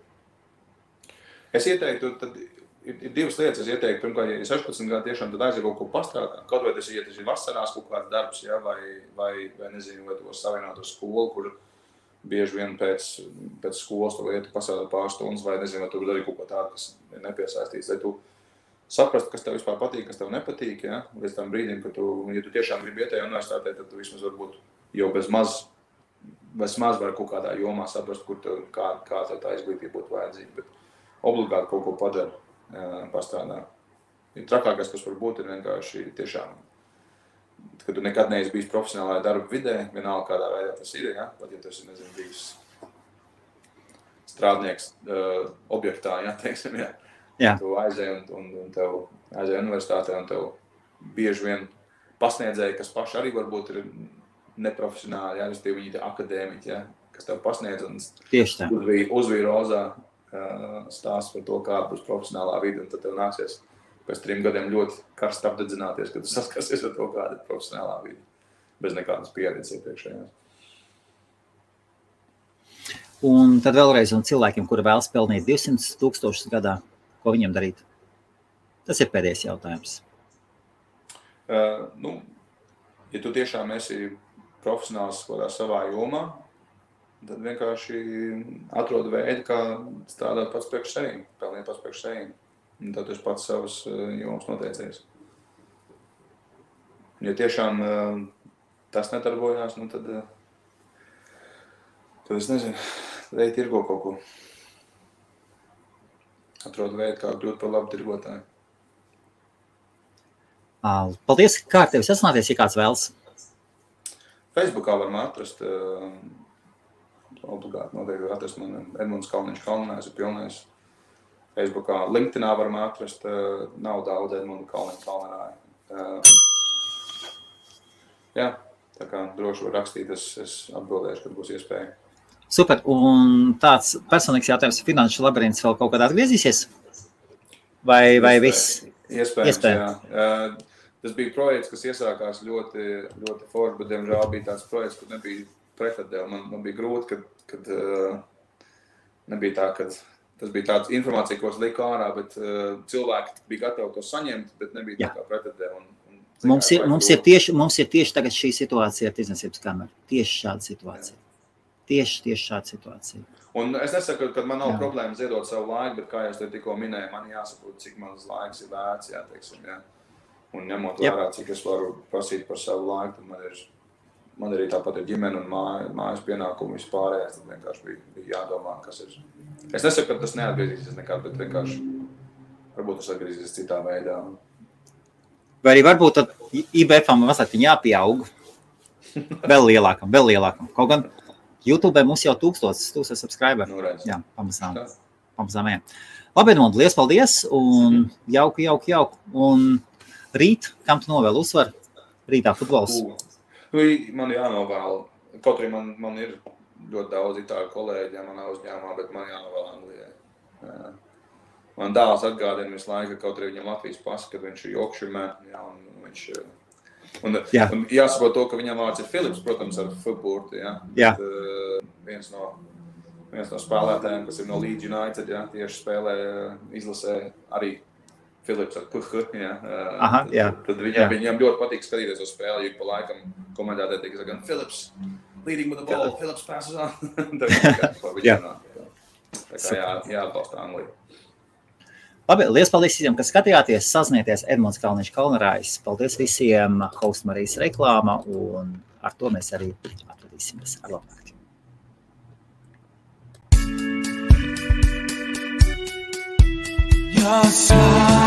Es ieteiktu, tad ir divas lietas. Es ieteiktu, pirmkārt, ja 16 gadi tiešām, tad aiziet kaut ko pastrādāt. Kaut vai tas ir vasarās kaut kāds darbs, ja, vai nezinu, vai tu savienot ar skolu, kur bieži vien pēc skolas tu lietu pasādāt pāris stundas, vai nezinu, vai tu arī kaut ko tādu, kas ir nepiesaistīts, lai tu saprast, kas tev vispār patīk, kas tev nepatīk, ja? Līdz tam brīdim, ka ja tu tiešām gribi iet tajā universitātē, tad tu vismaz varbūt jau bez maz var kaut kādā jomā saprast, kā tev tā izglītība būtu vajadzīga, bet obligāti kaut ko padara, pastrādā. Trakākais, kas var būt, ir vienkārši tiešām, ka tu nekad neesi bijis profesionālajā darba vidē, vienalga kādā veidā tas ir, ja? Pat ja tas ir, nezinu, bijis strādnieks objektā, ja, teiksim, ja. Jā. Tu aizēji un tev aizēji universitātē un tev bieži vien pasniedzēji, kas paši arī varbūt ir neprofesionāli, ja, viņi ir akadēmiķi, ja, kas tev pasniedz un uzvīja rozā stāsts par to, kāda būs profesionālā vide, un tad tev nāksies pēc 3 gadiem ļoti karsti apdedzināties, kad tu saskarsies ar to, kāda ir profesionālā vide, bez nekādas pieredzes iepriekšējās. Un tad vēlreiz un cilvēkiem, kuri vēlas pelnīt 200,000 gadā, ko viņam darīt? Tas ir pēdējais jautājums. Ja tu tiešām esi profesionāls kādā savā jomā, tad vienkārši atrod veidu, kā strādāt pats priekš sevīm, pelnīt pats priekš sevīm. Un tad tu esi pats savas jomas noteicējis. Ja tiešām tas nedarbojās, tad es nezinu, tad ej tirgo kaut ko. Atrod veidu, kā kļūt par labu tirgotāju. Paldies, kā ar tevi sasināties, ja kāds vēlas? Facebookā varam atrast, obligāti noteikti atrast man Edmunds Kalniņš Kalnājs ir pilnais. Facebookā, LinkedInā varam atrast, nav daudz Edmundu Kalniņš Kalnājā. Jā, tā kā droši var rakstīt, es atbildēšu, kad būs iespēja. Super, un tāds personīgs jautājums, finanšu labirints vēl kaut kādā atgriezīsies? Vai viss? Iespējams, jā. Tas bija projekts, kas iesākās ļoti, ļoti forši, bet diemžēl bija tāds projekts, kur nebija pretatdeva. Man bija grūti, kad nebija tā, kad tas bija tāds informācija, ko es liku ārā, bet cilvēki bija gatavi to saņemt, bet nebija tā kā pretatdeva. Un Mums ir tieši tagad šī situācija ar tirdzniecības kameru. Tieši šāda situācija. Tieši šāda situācija. Un es nesaku, ka man nav problēma ziedot savu laiku, bet, kā jūs te tikko minēju, man jāsaprot, cik mans laiks ir vērts, teiksim. Un ņemot vērā, cik es varu prasīt par savu laiku, tad man arī tāpat ir ģimene un mājas pienākumi vispārējais, tad vienkārši bija jādomā, kas ir. Es nesaku, ka tas neatgriezīsies nekad, bet vienkārši varbūt tas atgriezīsies citā veidā. Vai arī varbūt tad IBF-am mazliet jāpieaug vēl lielākam. Kaut gan YouTube mums jau 1000 subscriberi. Jā, pamazām. Labi, Edmund, liels paldies un jauku. Un rīt, kam tu novēl uzvaru? Rītā futbols. Man jānovēl. Kaut arī man ir ļoti daudz itāļu kolēģi manā uzņēmumā, bet man jānovēl Anglijai. Man dēls atgādina visu laiku, kaut arī viņam Latvijas pasa, kad viņš ir Yorkshireman, un jāsaprot to, ka viņam vārds ir Philips, protams, ar F-burti, viens no spēlētājiem, kas ir no Leeds United, tieši spēlē, izlasē arī Philips ar PH, tad viņam ļoti patīk skatīties uz spēli, jo pa laikam komentētāji tiek gan Philips, leading with the ball, Philips passes on. Tā kā jāatbalsta Angliju. Labi, liels paldies visiem, kas skatījāties, sazināties Edmunds Kalniņš Kalnarājs. Paldies visiem, Host Marijas reklāma, un ar to mēs arī atradīsimies ar labāk. Your